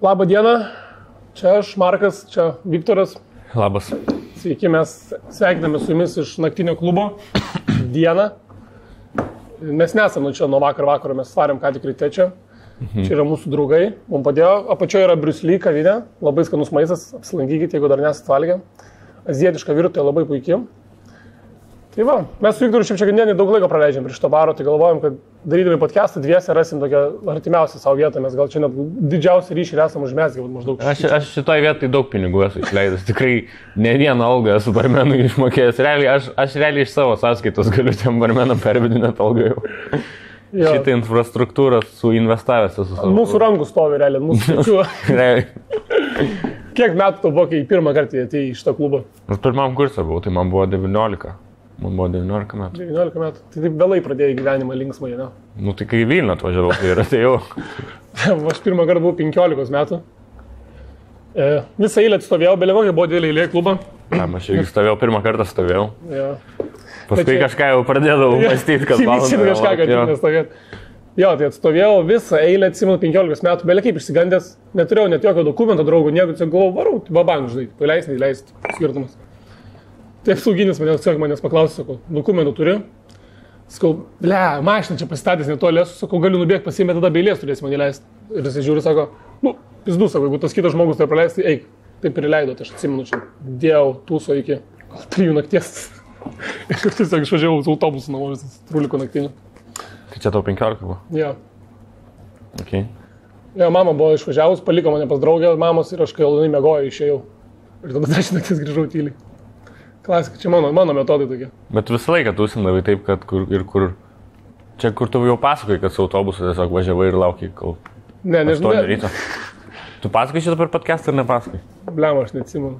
Labą dieną, čia aš, Markas, čia Viktoras. Labas. Sveiki, mes sveikiname su jumis iš naktinio klubo dieną. Mes nesam čia nuo vakaro, mes svarėm ką tik ryte čia. Čia yra mūsų draugai, mums padėjo. Apačioje yra Bruce Lee kavinė, labai skanus maistas, apsilankykite, jeigu dar nesat valgę. Azijietiška virtuvė labai puikiai. Tai va, mes su Viktoru šiandien daug laiko praleidžiam prie šito baro, tai galvojam, kad darydami podcastą dviese rasim tokią artimiausią savo vietą, mes gal čia net didžiausią ryšį esam užmesgę maždaug. Aš šitoj vietai daug pinigų esu išleidęs, tikrai ne vieną algą esu barmenui išmokėjęs. Realiai, aš realiai iš savo sąskaitos galiu tiem barmenam pervedinėti algą jau. Šitą infrastruktūrą suinvestavęs esu savo. Mūsų rankų stovi realiai, mūsų pečių. Kiek metų tau buvo, kai pirmą kartą atėjai į šitą klubą? Aš pirmam kursą buvau, tai man buvo 19. Man buvo 19 metų. 19 metų. Tai taip vėlai pradėjai gyvenimą linksmai, ne? Nu tai kai į Vilnių atvažiavau, tai ir atėjau. Aš pirmą kartą buvau 15 metų. Visą eilę atstovėjau, belie kokia buvo didelė eilė klubą. Aš irgi stovėjau, pirmą kartą stovėjau. Ja. Paskui kažką jau pradėdavau mąstyti, kad valandą. Kažką, kad nestovėt. Jo, tai atstovėjau visą eilę, atsimenu 15 metų, belie kaip išsigandęs, neturėjau net jokio dokumento draugų, nieko, tiesiog galvojau, varau, babang, žinai, paleis, neįleis, skirtumas. Taip sauginis manęs paklausė, sakau, dokumentų turiu. Sakau, ble, mašiną čia pasistatęs netoli, sakau, galiu nubėgti pasiimti, tada beilės turėsi man įleisti. Ir jis žiūri, sako, nu, pizdu, sako, jeigu tas kitas žmogus tai praleis, tai eik. Taip ir įleido, tai aš atsimenu čia, dėjau tūso iki 3 nakties. Ir tiesiog išvažiavau su autobusu namo, visas truliko naktinių. Tai čia tau 15 buvo? Jo. Okay. Jo, mama buvo išvažiavus, paliko mane pas draugę mamos ir aš kai ilgai miegoju išėjau. Ir tada 10 nakties grįžau tyliai. Klasika, čia mano metodai tokie. Bet visą laiką tūsindavai taip, kad kur čia kur tu jau pasakoji, kad su autobusu tiesiog važiavai ir laukiai, kol... Ne, nežinau. Tu pasakoji šitą per podcastą ar nepasakoji? Bliam, aš neatsimenu.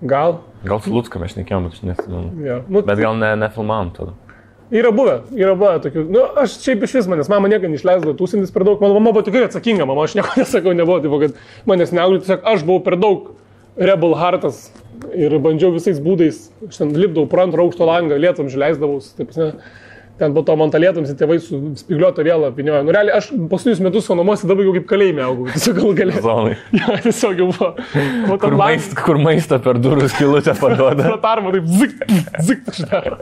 Gal su Lucka mes šnekėjom, bet aš neatsimenu. Ja. Bet gal nefilmavom tada. Yra buvę tokių. Nu, aš šiaip iš vis manęs, mama nieko neišleisdavo tūsintis per daug. Mano mama buvo tikrai atsakinga, mama, aš nieko nesakau, nebuvo, tipo, kad manęs neauglė, tiesiog aš buvau per daug rebel heartas. Ir bandžiau visais būdais, aš ten lipdavau pro antrą aukšto langą, lietam žileisdavaus, taip, ne, ten po to man tą lietams į tėvai su spigliuotą vėlą apiniojo. Nu, realiai, aš paskutinius metus savo namuose dabar jau kaip kalėjime augau, tiesiog gal galėjau. Zonai. Ja, tiesiog jau buvo. Kur maistą per durų skylutę paduoda. Pratarma, taip, zik, šneka.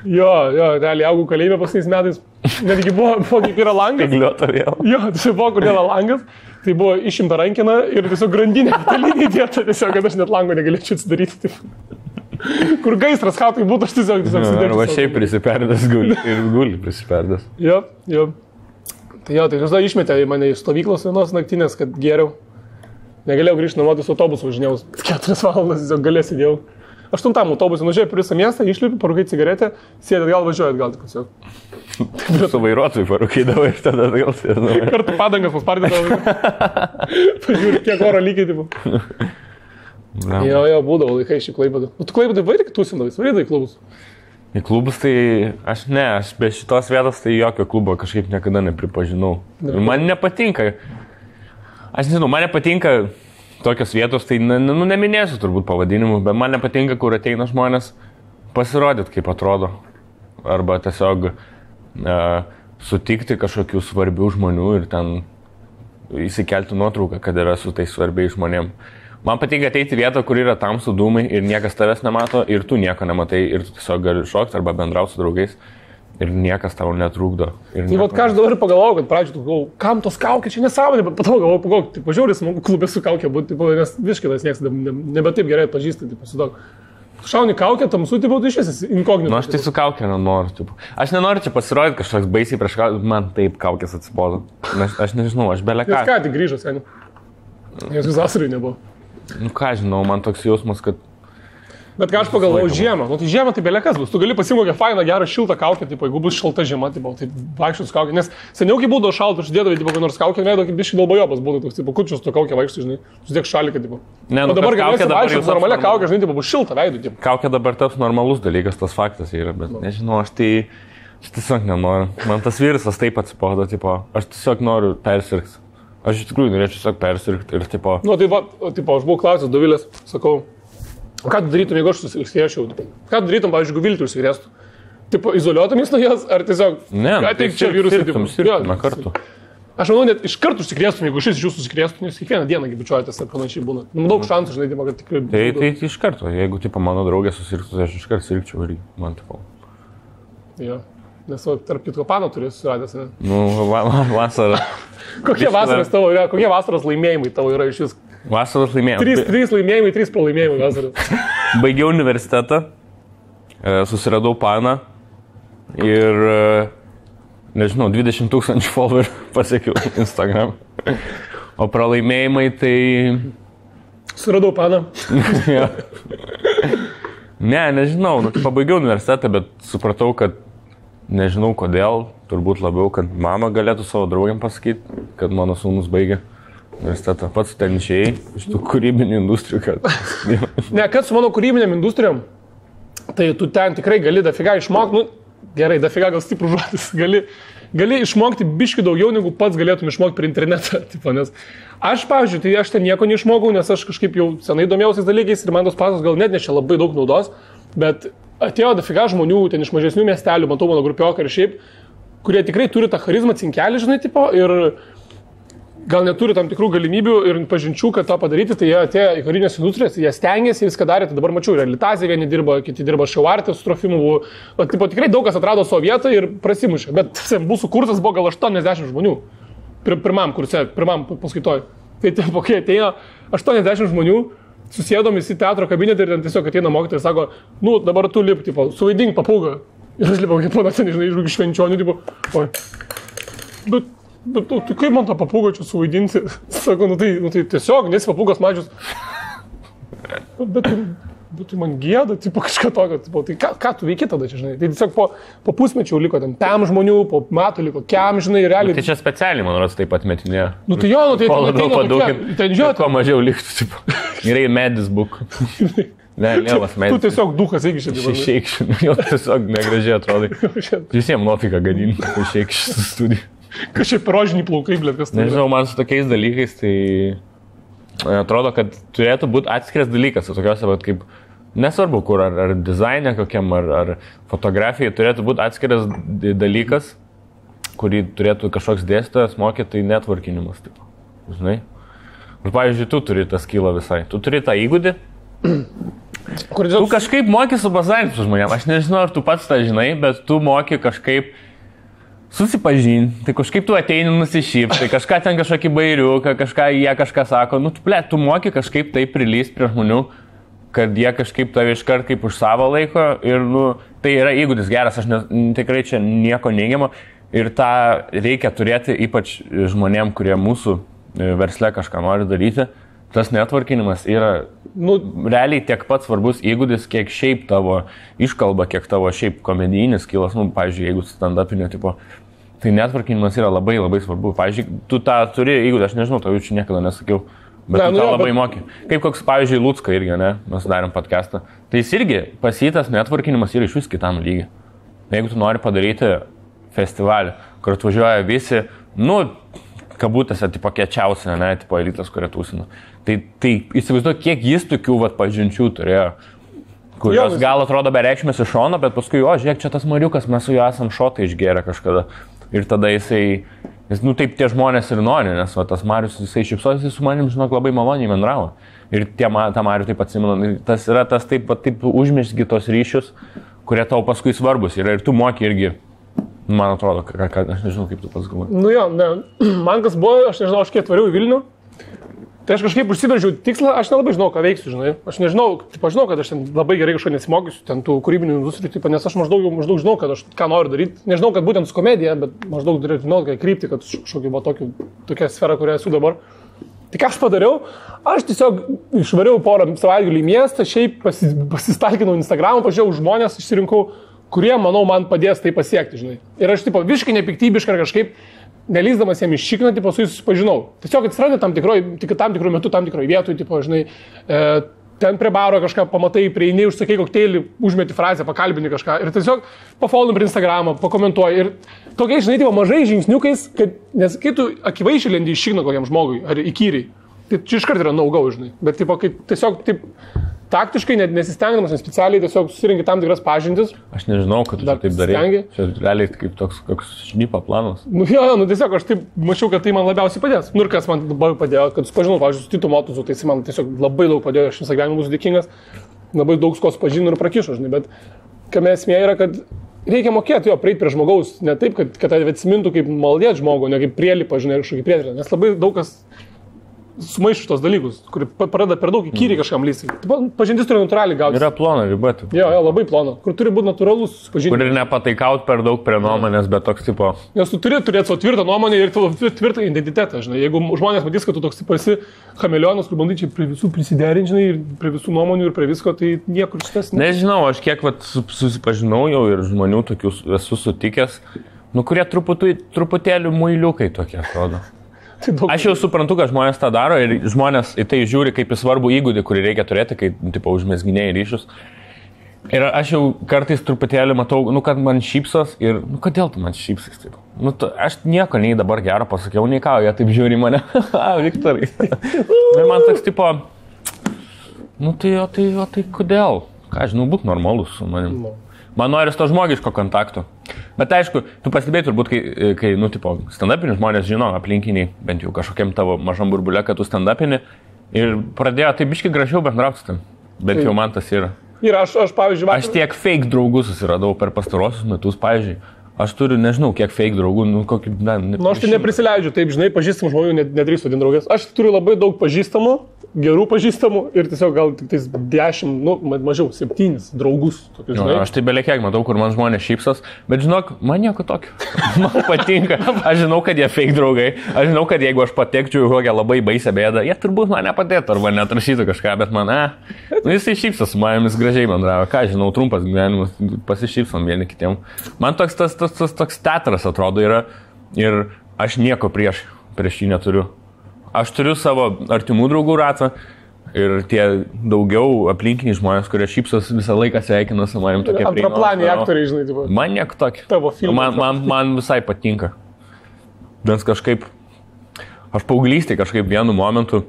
Jo, realiai augau kalėjime paskutiniais metais. Netgi buvo kaip yra langas. Spigliuotą vėlą. Jo, tiesiog buvo, kur yra langas. Tai buvo išimta rankina ir tiesiog grandinė talinė dėta, tiesiog, kad aš net lango negalėčiau atsidaryti. Taip. Kur gaisras, ką tai būtų, aš tiesiog sudėčiau. Arba šiaip prisiperdęs guli prisiperdęs. Jo. Tai tada išmetė į mane iš stovyklos vienos naktinės, kad geriau. Negalėjau grįžti namo, su autobusu važinėjau 4 valandas, tiesiog galės įdėjau. 8 autobusą nužiūrėjau per visą miestą, išlipi, parūkai cigaretę, sėdėt gal, važiuojat gal, tik tiesiog. Su vairuotojui parūkydavai ir tada gal sėdėdavai. Kartu padangas paspardydavai. Pažiūrė, kiek oro lygiai, tipo. Jo, būdavo laikai šį Klaipėdą. Tu Klaipėdai vairį tūsindavai, vairydai į klubus? Į klubus tai aš be šitos vietos tai jokio klubo kažkaip niekada nepripažinau. Ir man nepatinka. Aš nežinau, man nepatinka tokios vietos, tai neminėsiu turbūt pavadinimų, bet man nepatinka, kur ateina žmonės pasirodyti, kaip atrodo. Arba tiesiog sutikti kažkokių svarbių žmonių ir ten įsikelti nuotrauką, kad yra su tais svarbiais žmonėm. Man patinka ateiti vietą, kur yra tamsų dūmai ir niekas tavęs nemato ir tu nieko nematai ir tu tiesiog gali šokti arba bendrauti su draugais. Ir niekas tau netrukdo. Tai vat ką aš dabar pagalvojau, kad pradžioje galvojau, kam tos kaukės, čia nesąmonė, bet patau galvojau, tai pažiūrėjau, smagu klubė su kaukė būti, nes viškinas niekas nebe taip gerai atpažįsta, tai šauni kaukę, tamsu, tai iš vis inkognito. Nu aš tai su kaukė nenoriu. Aš nenoriu čia pasirodyti kažkoks baisiai prieš kaukę, man taip kaukės atsibodo. Aš nežinau, aš belė ką. Jis ką tik grįžo, seniai. Jis visasariai nebuvo. Nu ką žinau, man toks jausmas, kad... Bet ką aš pagalvojau, žiemą. Nu tai žiemą tai belekas bus. Tu gali pasimti kokią fainą, gerą, šiltą kaukę, tipo, jeigu bus šalta žiema, tai vaikščius kaukę. Nes seniau, kai būdavo šalta, aš dėdavau, kokią nors kaukę, leido, kaip biškai dalbajobas būtų toks, tipo, kučius tu kaukę vaikščius, žinai, susidėk šaliką, tipo. Ne, nu, o dabar galėsi vaikščius normalią kaukę, žinai, tipo, bus šilta veidų, tipo. Kaukė dabar taps normalus dalykas, tas faktas yra, bet nežinau, aš tiesiog nenoriu. Man tas virusas taip atsibodo, tipo, aš tiesiog noriu persirgti. Aš iš tikrųjų norėčiau tiesiog persirgti ir, tipo... Nu, tai va, tipo, aš buvau klausęs Dovilės, sakau, ką tu darytum, jeigu aš užsikrėsčiau? Ką tu darytum, pavyzdžiui, jeigu Viltį užsikrėstų? Tipo, izoliuotumės nuo jos, ar tiesiog... Ne, ateik čia virusą, tipo... Sirgtume kartu. Aš manau, net iš karto užsikrėstum, jeigu šis iš jūsų užsikrėstum, jūs kiekvieną dieną bičiuojatės ir panašiai būna. Daug šansų, žinai, kad tikrai... Tai iš karto, jeigu, tipo, mano draugė susirgtų, aš iš karto sirgčiau ir man, tipo... Jo, nes tarp kitko pano turi susiradęs, ne? Nu, vasara. Kokie vasaros tavo yra, kokie vasaros laimėjimai tavo yra iš vis? Vasaros laimėjimai. 3 laimėjimai, 3 pralaimėjimai vasaros. Baigiau universitetą, susiradau paną ir... Nežinau, 20 000 followerių pasiekiau Instagram. O pralaimėjimai tai... Suradau paną. Ja. Nežinau, pabaigiau universitetą, bet supratau, kad nežinau kodėl, turbūt labiau, kad mama galėtų savo draugiam pasakyti, kad mano sūnus baigė universitetą. Pats ten išėjai iš tų kūrybinių industrijų. Kad su mano kūrybinėm industrijom, tai tu ten tikrai gali dafiga išmokti, gerai, dafiga gal stiprų žodis, gali išmokti biški daugiau, negu pats galėtum išmokti per internetą. Tipo, nes aš, pavyzdžiui, tai aš ten nieko neišmokau, nes aš kažkaip jau senai domėjausiais dalykais ir man tos pasos gal net nešė labai daug naudos, bet atėjo dafiga žmonių ten iš mažesnių miestelių, matau mano grupioką ir šiaip, kurie tikrai turi tą charizmą cinkelį, žinai, tipo, ir gal neturi tam tikrų galimybių ir pažinčių, kad tą padaryti, tai jie atėjo į karinės industrijas, jie stengiasi, viską darė, tai dabar mačiau, ir Litazė vieni dirba, kiti dirba Šiauartė su Trofimu, bet tipo, tikrai daug kas atrado savo vietą ir prasimušė, bet mūsų kursas buvo gal 80 žmonių, pirmam kurse, pirmam paskaitoj. Tai tipo, kai ateina 80 žmonių, susėdom į teatro kabinetą ir ten tiesiog ateina mokytojai ir sako, nu dabar tu lip, tipo, suvaidink papūgą. Ir aš lipau, kaip ponas, nežinai, iš švenčionių, tipo, oi. Bet tu kaip man tą papūgą čia suvaidinti? Sako, nu tai tiesiog, nesi papūgos mažius. Bet tai man gėda, tipo kažką tokio, tipo, tai ką tu veiki tada čia, žinai? Tai tiesiog po pusmečių liko ten pem žmonių, po metų liko kem, žinai, realiai. Tai čia specialiai, man rodos, taip pat metinė. Nu tai jo, nu tai ten žiūrėt. Kuo mažiau liktų, tipo. Gerai, medis buk. Ne, lievas medis. Tu tiesiog dukas eikščiai. Išeikščiai, jau tiesiog negražiai atrodai. Visiems nuofika gadinti, išeikščiai su studiju. Kažkaip rožinį plaukai, blėt, kas tai. Nežinau, man su tokiais dalykais, tai atrodo, kad turėtų būti atskiras dalykas, tokiuose, kaip, nesvarbu, kur, ar dizainė kokiam, ar fotografija, turėtų būti atskiras dalykas, kurį turėtų kažkoks dėstytojas mokyti, tai networkinimas, taip, žinai. Ir, pavyzdžiui, tu turi tą skylą visai, tu turi tą įgūdį, tu kažkaip moki su bazarinti su žmonėm, aš nežinau, ar tu pats tą žinai, bet tu moki kažkaip susipažinti, tai kažkaip tu ateini nusišypti, tai kažką ten kažkokį bairiuką, jie kažką sako, nu, tu moki kažkaip tai prilysti prie žmonių, kad jie kažkaip tave iškart kaip už savo laiko ir, nu, tai yra įgūdis geras, aš tikrai čia nieko neigiamo ir tą reikia turėti ypač žmonėm, kurie mūsų versle kažką nori daryti. Tas networkinimas yra, nu, realiai tiek pat svarbus įgūdis, kiek šiaip tavo iškalba, kiek tavo šiaip komedijinis kilas, nu, pavyzdžiui, jeigu stand-upinio tipo, tai networkinimas yra labai labai svarbu. Pavyzdžiui, tu tą turi įgūdį, aš nežinau, tau čia niekada nesakiau, bet tu tą labai moki. Kaip koks, pavyzdžiui, Lucka irgi, ne, mes darėm podcastą, tai jis irgi pasitas networkinimas yra iš vis kitam lygiai. Jeigu tu nori padaryti festivalį, kur atvažiuoja visi, nu, kabutėse, tipo, kiečiausia, ne, tipo, elitas, kurie tūsina. Tai įsivaizduoju, kiek jis tokių, pažinčių turėjo, kurios gal atrodo bereikšmės iš šono, bet paskui, žiūrėk, čia tas Mariukas, mes su juo esam šotą išgėrę kažkada. Ir tada jisai, nu, taip tie žmonės ir nori, nes tas Marius, jisai šypsosi, jisai su manim, žinok, labai maloniai bendravo. Ir tą Marių taip atsimenu, tas yra tas taip užmesgi tos ryšius, kurie tau paskui svarbus yra ir tu moki irgi. Man atrodo, aš nežinau, kaip tu pats galvoji. Nu jo, ne. Man kas buvo, aš nežinau, aš kiek atvariau į Vilnių, tai aš kažkaip užsibrėžiau tikslą, aš nelabai žinau, ką veiksiu, žinai. Aš nežinau, žinau, kad aš ten labai gerai kažko nesimokysiu, ten tų kūrybinių industrijų, nes aš maždaug žinau, kad aš ką noriu daryti. Nežinau, kad būtent su komedija, bet maždaug žinau, kad krypti, kad kažkokia buvo tokia sfera, kurioje esu dabar. Tai ką aš padariau, aš tiesiog išvariau porą savaitgalių į miestą, šiaip pasistalkinau Instagramą, pažiūrėjau žmonės, išsirinkau, kurie, manau, man padės tai pasiekti, žinai. Ir aš, tipo, visiškai nepiktybiškai ar kažkaip, nelysdamas jam iššikną, tipo, su jais susipažinau. Tiesiog atsirado tam tikrų metų, tam tikroje vietoje, tipo, žinai, ten prie baro kažką pamatai, prieini, užsakai kokteilį, užmeti frazę, pakalbini kažką ir tiesiog pafollow per Instagramą, pakomentuoji. Ir tokiais, žinai, tipo, mažai žingsniukais, kad, nes kai tu akivaizdžiai lendi iššikną kokiam žmogui ar įkyriai, tai čia iškart yra no-go, žinai. Bet, tipo, kai tiesiog, taip, taktiškai, net nesistengdamas, nes specialiai tiesiog susirinki tam tikras pažintis. Aš nežinau, kad tu taip darai. Čia realiai kaip toks šnipo planas. Tiesiog aš taip mačiau, kad tai man labiausiai padės. Ir kas man labai padėjo, kad supažinau, pavyzdžiui, su Titu Motuzu, tai jis man tiesiog labai daug padėjo, aš visą gyvenimą būsiu dėkingas, labai daug skos pažinau ir prakišo, žinai, bet kame esmė yra, kad reikia mokėti prieiti prie žmogaus, ne taip, kad atsimintų kaip maldėt žmogų, ne kaip prielipą, žinai, kažkokį prietrę, nes labai daug kas sumaišų tos dalykus, kur pradeda per daug įkyriai kažkam lysti. Pažintis turi natūraliai gauti. Yra plona riba. Jo, labai plona. Kur turi būti natūralus pažintis. Kur ir nepataikaut per daug prie nuomonės, bet toks tipo. Nes tu turi turėti savo tvirtą nuomonę ir tvirtą identitetą, žinai. Jeigu žmonės matys, kad tu toks esi chameleonas, kur bandai čia prie visų prisiderinti, žinai, ir prie visų nuomonių ir prie visko, tai niekur šitas. Nežinau, aš kiek susipažinau jau ir žmonių tokių esu sutikęs, kurie truputėlį muiliukai tokie atrodo. Aš jau suprantu, kad žmonės tą daro ir žmonės į tai žiūri kaip į svarbų įgūdį, kurį reikia turėti, kai, tipo, užmesginiai ryšius. Ir aš jau kartais truputėlį matau, kad man šypsos ir, kodėl tu man šypsais taip? Aš nieko nei dabar gero pasakiau, nei ką, jie taip žiūri mane. Viktorai. Ir man toks, tipo, tai kodėl? Ką, žinau, būk normalus su manim. Man noris to žmogiško kontakto. Bet aišku, tu pastebėjai turbūt, kai stand-upini žmonės žino aplinkiniai, bent jau kažkokiam tavo mažam burbulė, kad tu stand-upini ir pradėjo taip biškai gražiau bendrauti tam. Bent jau man tas yra. Ir aš pavyzdžiui, aš tiek fake draugų susiradau per pastarosius metus, pavyzdžiui. Aš turiu, nežinau, kiek fake draugų, kokį, aš tai neprisileidžiu, taip, žinai, pažįstamų žmonių nedrįstu vadinti draugės. Aš turiu labai daug pažįstamų, gerų pažįstamų ir tiesiog gal tik 10, mažiau, 7 draugus. Tokius, aš tai belekiek matau, kur man žmonės šypsos, bet žinok, man nieko tokio. Man patinka, aš žinau, kad jie fake draugai, aš žinau, kad jeigu aš patekčiau į kokią labai baisę bėdą, jie turbūt man nepadėtų arba neatrašytų kažką, bet man, jisai šypsos su manim, jis gražiai bendravo, ką žinau, trumpas gyvenimas, pasišypsom vieni kitiem. Man toks teatras atrodo yra ir aš nieko prieš jį neturiu. Aš turiu savo artimų draugų ratą ir tie daugiau aplinkiniai žmonės, kurie šypsos visą laiką sveikina su manim tokie prieinami. Antraplaniai aktoriai, žinai, tipo. Man nieko tokio. Tavo filmai. Man visai patinka. Nes kažkaip, aš paauglystėje kažkaip vienu momentu,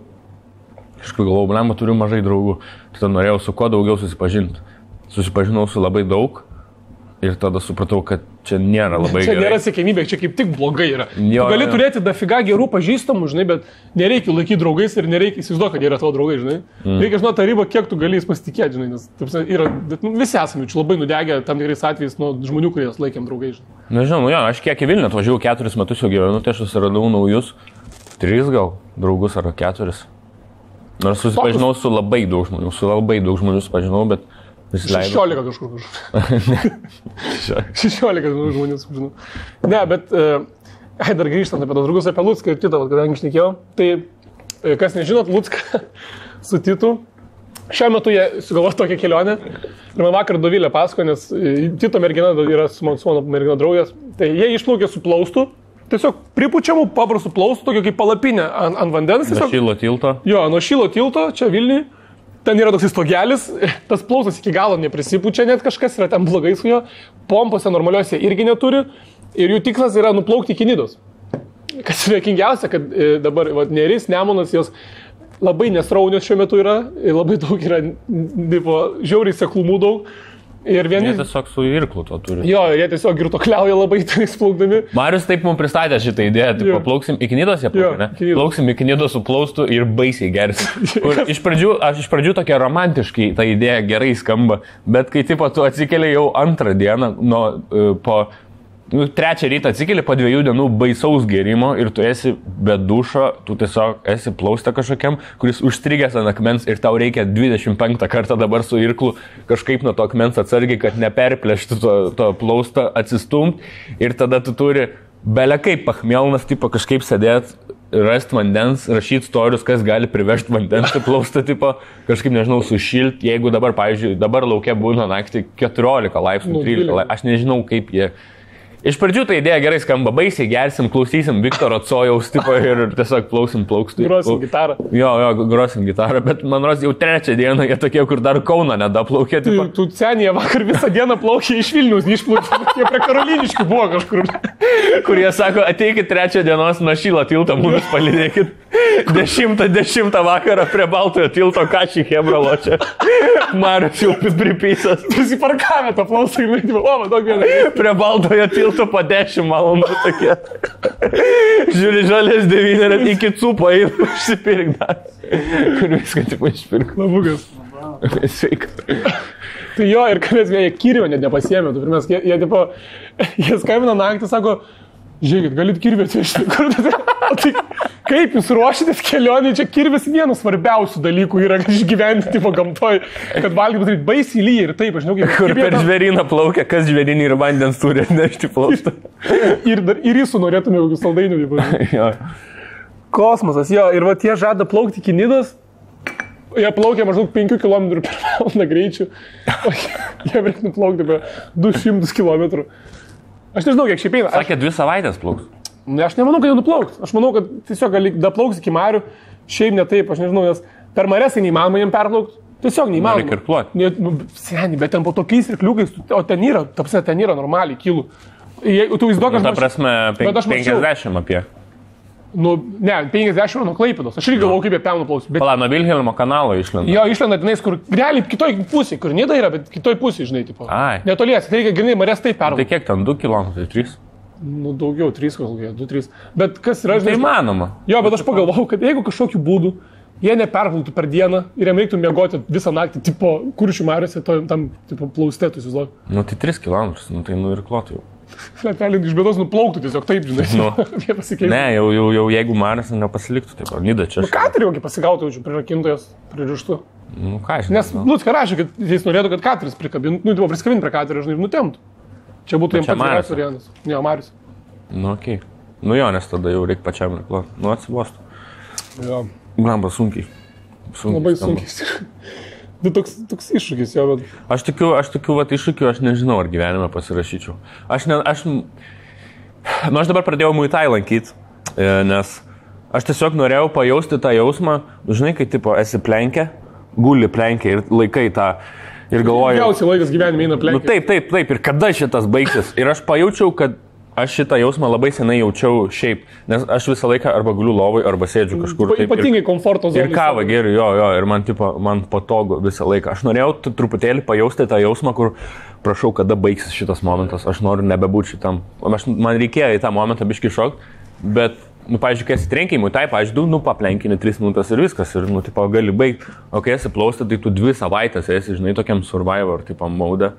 galvojau, blema, turiu mažai draugų. Tada norėjau su kuo daugiau susipažinti. Susipažinau su labai daug. Ir tada supratau, kad čia nėra labai gerai. Čia nėra siekiamybė, čia kaip tik blogai yra. Tu gali turėti dafiga gerų pažįstamų, žinai, bet nereikia laikyti draugais ir nereikia įsivaizduoti, kad jie yra tavo draugai, žinai. Reikia žinoti tą ribą, kiek tu gali jais pasitikėti, žinai, nes yra, visi esame čia labai nudegę tam tikrais atvejais nuo žmonių, kurie jas laikėm draugai, žinai. Nežinau, aš kiek į Vilnių atvažiavau 4 metus jau gyvenu, tai aš susiradau naujus 3 gal draugus ar 4. Nors susipažinau su labai daug žmonių susipažinau, bet 16 kažkur. 16 žmonių sužinau. Ne, bet dar grįžtant apie tos draugus, apie Lucką ir Titą, kadangi šnekėjau, tai kas nežinot, Lucką su Titu, šiuo metu jie sugalvojo tokią kelionę ir man vakar Dovilė pasako, nes Tito mergina yra su mano mergina draugės, tai jie išplaukė su plaustu, tiesiog pripučiamų paprastų plaustų, tokio kaip palapinė ant vandens. Nuo Šilo tilto? Jo, nuo Šilo tilto, čia Vilniui. Ten yra toks stogelis, tas plaustas iki galo neprisipučia, net kažkas yra ten blogai su juo, pompose normaliuose irgi neturi ir jų tikslas yra nuplaukti iki Nidos. Kas yra kingiausia, kad dabar Neris, Nemunas, jos labai nesraunios šiuo metu yra, labai daug yra, žiauriai seklumų daug. Ir vieni... Jie tiesiog su irklu to turi. Jo, jie tiesiog girtokliauja labai tenais plaukdami. Marius taip mums pristatė šitą idėją, tai plauksim iki Nidos, jie plaukė, ne? Plauksim iki Nidos su plaustu ir baisiai gersim. Iš pradžių tokia romantiškai ta idėja gerai skamba, bet kai tipo tu atsikeli jau antrą dieną, po 3 rytą atsikeli po 2 dienų baisaus gerimo ir tu esi be dušo, tu tiesiog esi plauste kažkokiam, kuris užstrigęs ant akmens ir tau reikia 25 kartą dabar su irklu kažkaip nuo to akmens atsargiai, kad neperplėšti to plaustą, atsistumt ir tada tu turi belekaip pachmelnas tipo kažkaip sėdėti, rasti vandens, rašyti storius, kas gali privežti vandens į plaustą, tipo kažkaip, nežinau, sušilti, jeigu dabar, pavyzdžiui, dabar lauke būna naktį 14 laipsnių, 13 laipsnių, aš nežinau kaip jie. Iš pradžių ta idėja gerai skamba, baisiai gersim, klausysim Viktoro Cojaus tipo ir tiesiog plauksim plaukstų. Grosim gitarą. Jo, grosim gitarą, bet man rodos jau 3 dieną jie tokie, kur dar Kauną nedaplaukė. Tu senėje vakar visą dieną plaukė iš Vilniaus, neišplaukė, jie prie Karoliniškių buvo kažkur. Kur jie sako, ateikit 3 dienos nuo Šilo tilto, mumis palydėkit. 10 vakarą prie Baltojo tilto kašį Hebralo čia. Marius jau pripysas. Prisiparkavę tą plausą ir laidimą. O, man daug vieną. Prie Baltojo tilto po 10 valandų tokie. Žiūri žalės 9 iki cupo eina užsipirkdar. Kur viską tik išpirk. Labukas. Sveika. Tai jo, ir kad jie kirvio net nepasiėmė. Jie skambina naktį, sako, žiūrėkit, galit kirvį atvežti. Tai kaip jūs ruošitės kelionį, čia kirvis vienas svarbiausių dalykų yra išgyventi tipo gamtoj, kad valgyti daryti baisiai lyja ir taip, aš žinau, kaip... Kur per žvėryną plaukia, kas žvėrynį ir vandens turi atnešti plaustą. Ir jūsų norėtume kokius saldainių. Kosmosas, jo, ir va tie žada plaukti iki Nidos. Jie plaukia maždaug 5 km per valandą greičių, o jie reikia nuplaukti apie 200 km. Aš nežinau, kiek šiaip eina. Sakė, 2 savaitės plauks. Aš nemanau, kad jau nuplauks. Aš manau, kad tiesiog gali daplauks iki marių. Šiaip ne taip, aš nežinau, nes per maresą neįmanoma jiem perplaukti. Tiesiog neįmanoma. Reikia irkluoti. Seniai, bet ten po tokiais irkliukais, o ten yra normaliai kilų. Tu įsivaizduok, ta prasme, 50 apie. Ne, 50 nuo Klaipėdos. Aš irgi galvoju, kaip jie ten nuplaus. Pala, nuo Vilhelmo kanalo išlenda. Jo, išlenda tenais, kur realiai kitoj pusėje, kur Nida yra, bet kitoj pusėje, žinai, tipo. Netolies, tai reikia grinai marės taip pervažiuoti. Tai kiek ten, 2 km, 3? Nu, daugiau, 3 kokie, 2-3. Bet kas yra, žinai... Tai įmanoma. Jo, bet aš pagalvojau, kad jeigu kažkokiu būdu jie neperplautų per dieną ir jiem reiktų miegoti visą naktį, tipo, Kuršių mariose, tam, tipo, plaustėtų, įsivaizduok. Nu, tai 3 km, nu, tai nuirkluotų jau. Letelį iš bėdos nuplauktų tiesiog taip, žinai. Jie pasikeistų. Ne, jau jeigu Marius nepasiliktų, taip, Nida čia. Nu, ką turėjau, kai pasigautų, jaučiu, prirakintojas, pririštų. Nu, ką aš. Nes, nu, ką rašė, kad jis norėtų, kad Katris prikabintų, nu, tipo, priskabintų prie Katrio, žinai, ir nutemtų. Čia būtų jiems pats geriausias variantas. Ne, Marius. Nu, okei. Nu, jo, nes tada jau reikia pačiam irkluoti. Nu, atsibostų. Jo. Glamba sunkiai. Labai sunkiai. Tai toks iššūkis jo, bet... Aš tikiu, vat iššūkių, aš nežinau, ar gyvenime pasirašyčiau. Aš dabar pradėjau Muay Thai lankyti, nes aš tiesiog norėjau pajausti tą jausmą, žinai, kai tipo esi plenkė, guli plenkė ir laikai tą ir galvoju... Ilgiausiai laikas gyvenime eina plenkė. Nu, taip, ir kada šitas baigsis? Ir aš pajaučiau, kad aš šitą jausmą labai senai jaučiau šiaip, nes aš visą laiką arba guliu lovai, arba sėdžiu kažkur. Ypatingai komforto zonai. Ir kavą geriu, jo, ir man patogu visą laiką. Aš norėjau truputėlį pajausti tą jausmą, kur prašau, kada baigsis šitas momentas, aš noriu nebebūti šitam. Man reikėjo į tą momentą biškį šokti, bet, nu, pavyzdžiui, kai esi trenkimui, tai, pavyzdžiui, nu, paplenkini 3 minutės ir viskas, ir, nu, tipo, gali baigti. O kai esi plaustą, tai tu 2 savaitės esi, žinai, tokiam survivor, tipo, maudą.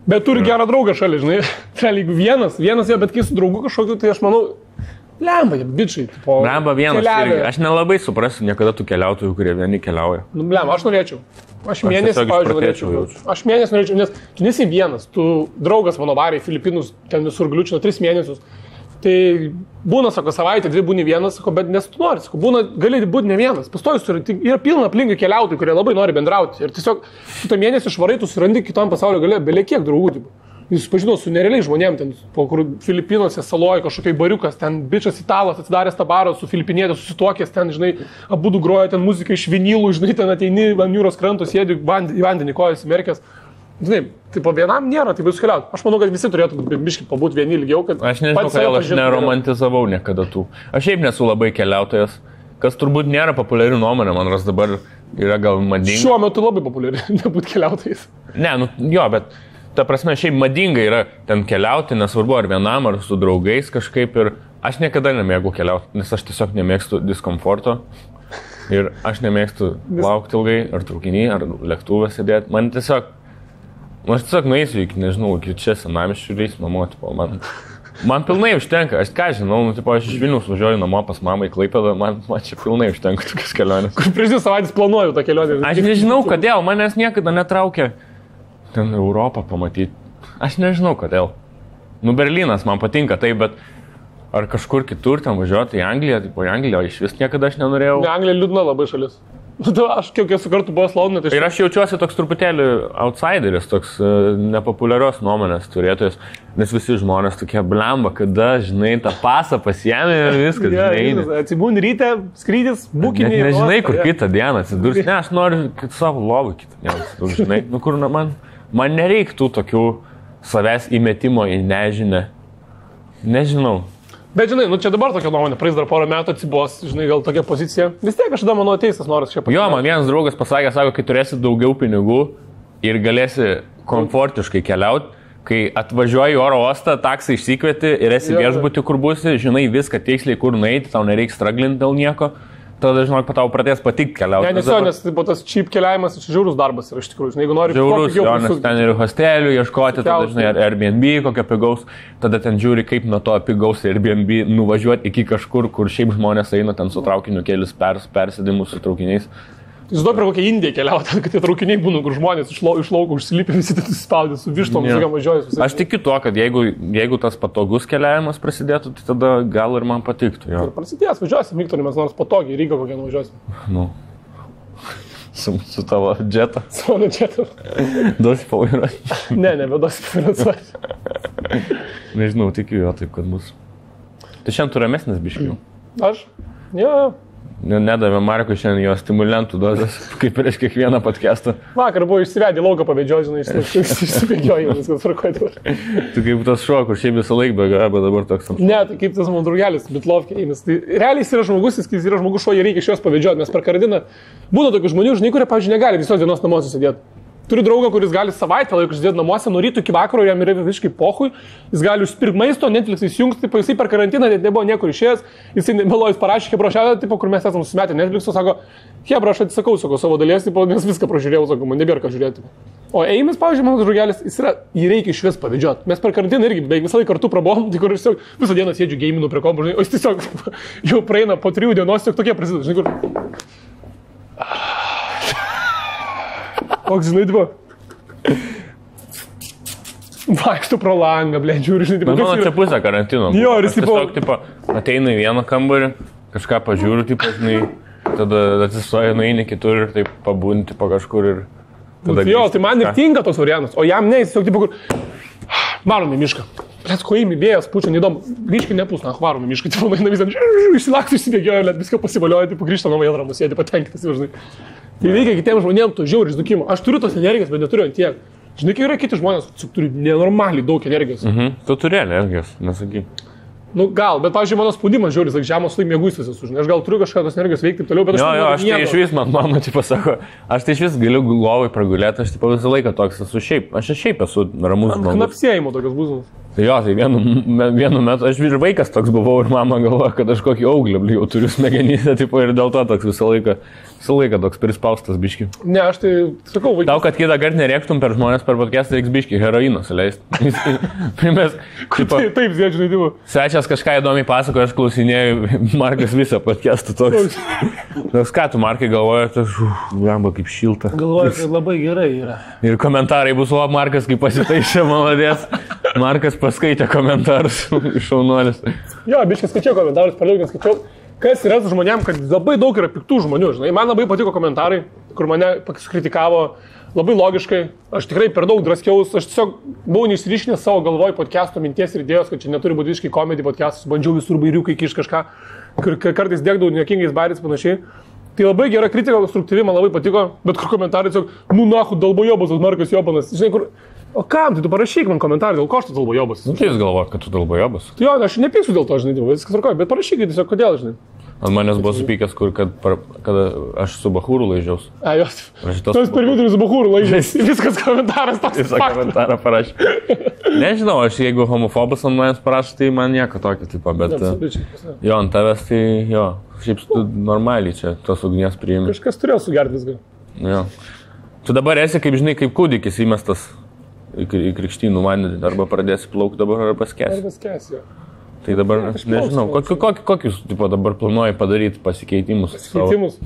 Bet turi gerą draugą šalia, žinai, jeigu vienas jo, bet kai su draugu kažkokiu, tai aš manau, lemba, bičiai, tipo, lemba vienas, irgi. Aš nelabai suprasiu niekada tų keliautojų, kurie vieni keliauja. Nu, lemba, aš norėčiau. Aš mėnesį, pavyzdžiui, norėčiau. Aš mėnesį norėčiau, nes tu nesi vienas, tu draugas mano varė į Filipinus, ten visur gliučino 3 mėnesius. Tai būna, sako, savaitę, 2 būni vienas, sako, bet nes tu nori, sako, būna, gali būti ne vienas. Pastojus yra pilna aplinkui keliautojų, kurie labai nori bendrauti. Ir tiesiog tu tą mėnesį švarai, tu surandi kitam pasaulio gale, belie kiek draugų. Tipo. Jis pažino su nerealiai žmonėm, ten, po kur Filipinuose saloje kažkokiai bariukas, ten bičias italas atsidaręs tą barą su filipinietė, susituokęs, ten, žinai, abudu groja ten muziką iš vinylų, žinai, ten ateini ant jūros kranto, sėdi į vandenį kojas įmerkęs. Žinai, tai po vienam nėra, tai bus keliauti. Aš manau, kad visi turėtų biškai pabūti vieni ilgiau, kad... Aš nežinau, kodėl aš neromantizavau niekada tų. Aš šiaip nesu labai keliautojas, kas turbūt nėra populiari nuomonė, man ras dabar yra gal madinga. Šiuo metu labai populiari, nebūti keliautojais. Ne, nu jo, bet ta prasme šiaip madinga yra ten keliauti, nesvarbu ar vienam, ar su draugais kažkaip ir aš niekada nemėgau keliauti, nes aš tiesiog nemėgstu diskomforto. Ir aš nemėgstu laukti ilgai, ar traukinį, ar lėktuvę sėdėti. Aš tiesiog nueisiu iki, nežinau, iki čia senamiesčių reis namo, tipo, man pilnai užtenka, aš ką žinau, nu, tipo, aš iš Vilniaus važiuoju namo pas mamą į Klaipėdą, man čia pilnai užtenka tokias kelionės. Kur prieš 2 savaitės planuoju tą kelionę. Aš nežinau, kodėl, manęs niekada netraukia ten Europą pamatyti. Aš nežinau, kodėl. Nu, Berlynas man patinka tai, bet ar kažkur kitur ten važiuoti į Angliją, tipo, į Angliją iš vis niekada aš nenorėjau. Ne, Anglija liūdna labai šalis. Aš kiek esu kartų buvęs Londone, tai... Ir aš jaučiuosi toks truputėlį outsideris, toks nepopuliarios nuomonės turėtojas, nes visi žmonės tokie blemba, kada, žinai, tą pasą pasiėmė ir viskas, žinai. Atsibūni ryte, skrydis, bukinį. Nežinai, kur kitą dieną atsidurs. Ne, aš noriu savo lovą kitą dieną atsidurs, žinai. Nu, kur man nereiktų tokių savęs įmetimo į nežinę. Nežinau. Bet žinai, nu čia dabar tokia nuomonė, praeis dar porą metų atsibos, žinai, gal tokia pozicija. Vis tiek kažkada mano ateisas noras čia pasakyti. Jo, man vienas draugas pasakė, sako, kai turėsi daugiau pinigų ir galėsi komfortiškai keliauti, kai atvažiuoji į oro uostą, taksą išsikvieti ir esi viešbutį, kur būsi, žinai viską tiksliai, kur nueiti, tau nereiks straglinti dėl nieko. Tada, žinok, tau pradės patikti keliauti. Ne, nes tas cheap keliavimas iš žiaurus darbas yra iš tikrųjų. Žinai, jeigu nori žiaurus, nes ten ir hostelių ieškoti, tada, žinai, Airbnb kokio pigaus, tada ten žiūri, kaip nuo to pigaus Airbnb nuvažiuoti iki kažkur, kur šiaip žmonės eina ten su traukiniu kelis persėdimus su traukiniais. Jūs duoda prie kokią Indiją keliauti, kad tie traukiniai būna, kur žmonės iš lauko užsilipė, visi tai suspaudė su vištom, visokiam važiuojas. Aš tikiu tuo, kad jeigu tas patogus keliavimas prasidėtų, tai tada gal ir man patiktų. Jo. Ir prasidės, važiuosim, Viktorį, mes nors patogiai, Rygą kokią nuvažiuosim. Nu. Su tavo džetu. Su mano džetu. Duosi pavairuoti. Ne, nebeduosi pavairuoti. Nežinau, tikiu jo taip, kad bus. Tai šiandien tu ramesnis biškiau. Aš? Jo. Nedavė Markui šiandien jo stimulentų dozės, kaip prieš kiekvieną podcastą. Vakar buvo išsivedė lauką pabėdžioji, žinai, išsibėgioji, viskas tvarkoja. Tu kaip tas šuo, kur šiaip visą laiką bėga, bet dabar toks ant šuo. Ne, tai kaip tas mano draugelis, Bitlovkė eimis. Tai realiai jis yra žmogus, jis yra žmogus šuo, jį reikia iš jos pabėdžioti, nes per karantiną būna tokių žmonių, žinai, kurie, pavyzdžiui, negali visos dienos namuose sėdėti. Turiu draugą, kuris gali savaitę laiko išsėdėti namuose, nuo ryto iki vakaro, jam yra visiškai pohui, jis gali užsipirkti maisto, Netflix įsijungti, tipo, jisai per karantiną net nebuvo niekur išėjęs, jisai melojus parašė, Hebrošelė, tipo, kur mes esame susimetę Netflix'o, sako, Hebra, aš atsisakau, sako, savo dalies, tipo, nes viską pražiūrėjau, sako, man nebėra ką žiūrėti. O Eimis, pavyzdžiui, mano draugelis, jį reikia iš vis pavėdžioti. Mes per karantiną irgi beveik visą laiką kartu prabom, tai kur aš tiesiog visą dieną sėdžiu gaminu prie kompo, žinai, o jis tiesiog jau praeina po 3 dienos, tiesiog tokie prasideda, žinai, kur. Koks, žinai, tipo. Vaikštų pro langą, blė, žiūri, žinai, tipo. Mano čia pusė karantino. Jo, ir jis, tiesiog, tipo, ateina į vieną kambarį, kažką pažiūriu, tipo, žinai, tada atsistoja, nueini kitur ir taip pabūnti po kažkur ir tada... Jo, tai man ir tinka tos variantas, o jam ne, jis tiesiog, tipo, kur... Varom į mišką. Plėt, ko įimi vėjas, pučia, neįdomu. Grįžkai nepus, na, varom į mišką, tipo, nueina visą, išsilaktų, išsibėgioja, net viską pasivalioja, tipo, grįžta nuo vėl ramus, sėdi patenkintas, žinai. Tai reikia kitiems žmonėms to žiauriai izdukimo. Aš turiu tos energijos, bet neturiu ant tiek. Žinai, kai yra kiti žmonės, turi nenormaliai daug energijos. Tu turi energijos, nesakyk. Nu gal, bet, pavyzdžiui, mano spaudimas žiauris, like, žemos laik mėgus visas už. Aš gal turiu kažką tos energijos veikti ir toliau, bet aš... Jo, aš tai iš vis, mano, tipo, sako, aš tai iš vis galiu lovai pragulėti, aš tipo visą laiką toks esu šiaip. Aš šiaip esu ramus žmogus. Knapsėjimo tokios būsimas. Jo, tai vienu metu aš ir vaikas toks buvau ir mama galvoja, kad aš kokį auglį jau turiu smegenyse, tipo, ir dėl to toks visą laiką toks prispaustas biški. Ne, aš tai sakau, vaikas. Tau, kad kitą kartą nerėktum per žmonės per podcastą, reiks biški heroino suleisti. Primės, tipo, taip, žinai, tipo. Svečias kažką įdomiai pasakoja, aš klausinėjau, Markas visą podcastą toks. Toks, ką tu, Markai, galvoji, tas, jamba kaip šilta. Galvoju, kad labai gerai yra. Ir komentarai bus, o Markas kaip pasitaišė, maladės. Markas paskaitė komentarus iš šaunuolis. Jo, biškai skaičiau komentarus, per daug neskaičiau. Kas yra su žmonėm, kad labai daug yra piktų žmonių, žinai. Man labai patiko komentarai, kur mane kritikavo labai logiškai. Aš tikrai per daug draskiaus, aš tiesiog buvau neišryškinęs savo galvoj podcast'o minties ir idėjos, kad čia neturi būti visiškai komedijų podcast'as, bandžiau visur bairiukai kiš kažką, kur kartais dėkdavau niekingais bairiais panašiai. Tai labai gera kritika, konstruktyvi, man labai patiko, bet kur komentarai tiesiog, nu nahu, dalbojobas, Markas Jobanas, žinai, kur... O kam, tai tu parašyk man komentarą, dėl ko aš tu dalbojobas? Nu, tai jūs galvojat, kad tu dalbojobas? Tai jo, aš nepyksiu dėl to, žinai, viskas tvarkoja, bet parašyk tiesiog, kodėl, žinai. Ant manęs buvo supykęs, kad aš su Bahūru laižiaus. A, jos. Tu esi per vidurį su Bahūru laižiaus. Viskas komentaras toks. Visą komentarą parašė. Nežinau, aš jeigu homofobas ant manęs parašė, tai man nieko tokio, tipo, bet... Jo, ant tavęs tai, jo, šiaip tu normaliai čia tos ugnies priimi. Kažkas turėjo sugerti viską. Jo. Tu dabar esi, kaip žinai, kaip kūdikis įmestas į krikštynų vandenį, arba pradėsi plaukti dabar, arba paskęsi. Arba paskęsi, jo. Tai dabar, nežinau, kokius tipo, dabar planuoji padaryti pasikeitimus? Pasikeitimus?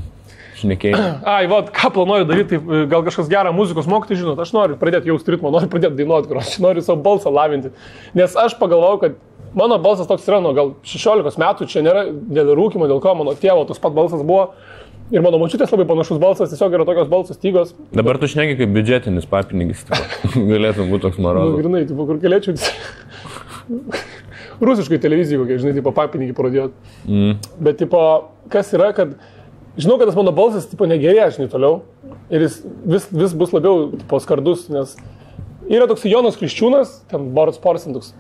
Šnekėjai. Ai, va, ką planuoju daryti, tai gal kažkas gerą muzikos mokyti, žinot, aš noriu pradėti jausti ritmą, noriu pradėti dainuoti, aš noriu savo balsą lavinti. Nes aš pagalvojau, kad mano balsas toks yra nuo gal 16 metų, čia nėra dėl rūkimo, dėl ko mano tėvo tas pat balsas buvo. Ir mano močiutės labai panašus balsas, tiesiog yra tokios balsas stygos. Dabar tu šneki kaip biudžetinis papinigis, galėtum būti toks moralus. Nu, grinai, tipo, kur galėčiau... Rusiškai televizijai kokie, žinai, tipo, papinigį parodėjot. Bet, tipo, kas yra, kad... Žinau, kad tas mano balsas, tipo, negerėja, žinai, toliau. Ir jis vis bus labiau, tipo, skardus, nes yra toks Jonas Kriščiūnas, ten Boris Porsin, toks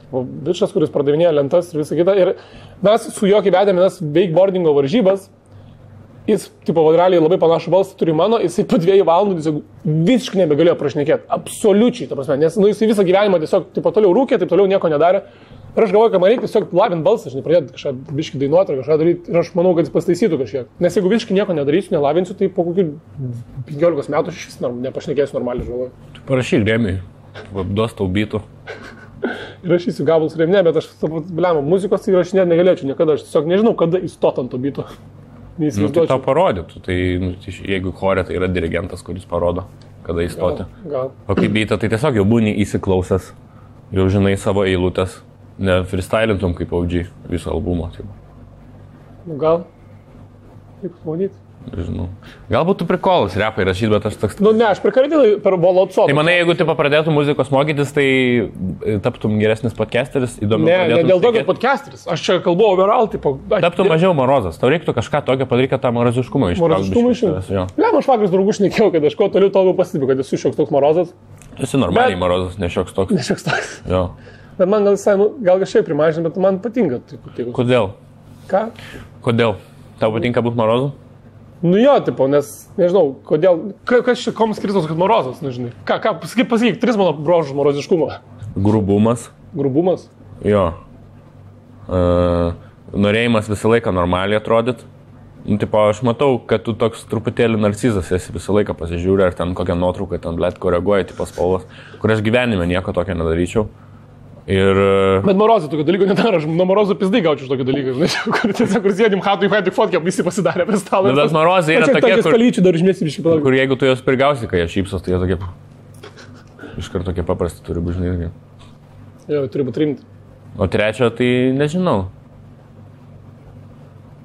bičas, kuris pardavinėja lentas ir visą kitą. Ir mes su juo kai vedėme tas wakeboardingo varžybas. Jis, tipo, realiai labai panašų balsą turi mano, jisai po 2 valandų tiesiog visiškai nebegalėjo prašnekėti. Absoliučiai, ta prasme, nes jisai visą gyvenimą tiesiog tipo, toliau rūkė, taip toliau nieko nedarė. Ir aš galvoju, kad man reikia tiesiog lavint balsą, žinai, pradėti kažką biškį dainuoti ar kažką daryti. Ir aš manau, kad jis pastaisytų kažkiek. Nes jeigu visiškai nieko nedarysiu, nelavinsiu, tai po kokių 15 metų aš nepašnekėsiu normaliai, žinau. Tu parašyk Remiui, duos tau bytų. Įrašysiu gabalus Remi, bet aš, bliam, muzikos įrašinėti negalėčiau niekada. Aš tiesiog nežinau, kada įstot ant to byto. Nu, tai tau parodytų. Tai, jeigu chore, tai yra dirigentas, kuris parodo, kada įstoti. Gal. O kaip byta, tai tiesiog jau būni įsiklausęs, jau žinai savo eilutės. Ne freestylintum kaip OG viso albumo. Taip. Nu gal. Kaip pamanyti? Žinau. Galbūt tu prikolas repai rašyti, bet aš toks... Nu ne, aš prikarydėjau per Volotso. Tai manai, jeigu tu pradėtum muzikos mokytis, tai taptum geresnis podcasteris, įdomiau. Ne dėl to, kad podcasteris. Aš čia kalbu overall, tipo... Taptum mažiau morozas. Tau reiktų kažką tokio padaryti, kad tą moroziškumą ištraukti. Moroziškumą ištraukti. Ne, aš vakar draugus šnekėjau, kad aš kuo toliau toliau pastebiu, kad esu šioks toks morozas. Tu esi normaliai morozas, ne šioks toks. Ne šioks toks. Jo. Bet man gal kažkaip primažina, bet man patinka. Kodėl? Ką? Kodėl? Tau patinka būti morozu? Nu jo, tipo, nes, nežinau, kodėl, kas čia kom skirtos, kad morozas, nežinai. Pasakyk, 3 mano brožus moroziškumo. Grubumas. Grubumas? Jo. Norėjimas visą laiką normaliai atrodyti. Nu, tipo, aš matau, kad tu toks truputėlį narcizas esi, visą laiką pasižiūrė, ar ten kokią nuotrauką ten, blėt, koreguoja, tipo spalvas, kur aš gyvenime nieko tokio nedaryčiau. Ir... Bet morozai tokio dalyko nedaro, aš nuo morozų pizdai gaučiau iš tokio dalyko, žinai, kur tiesiog sėdim hatui, tik fotkiam, visi pasidarė prie stalo. Bet morozai yra tokie, kur jeigu tu jos prigausi, kai jie šypsos, tai jie tokie... Iškart tokie paprasti turi būti, žinai. Jo, turi būti rimti. O trečio, tai nežinau.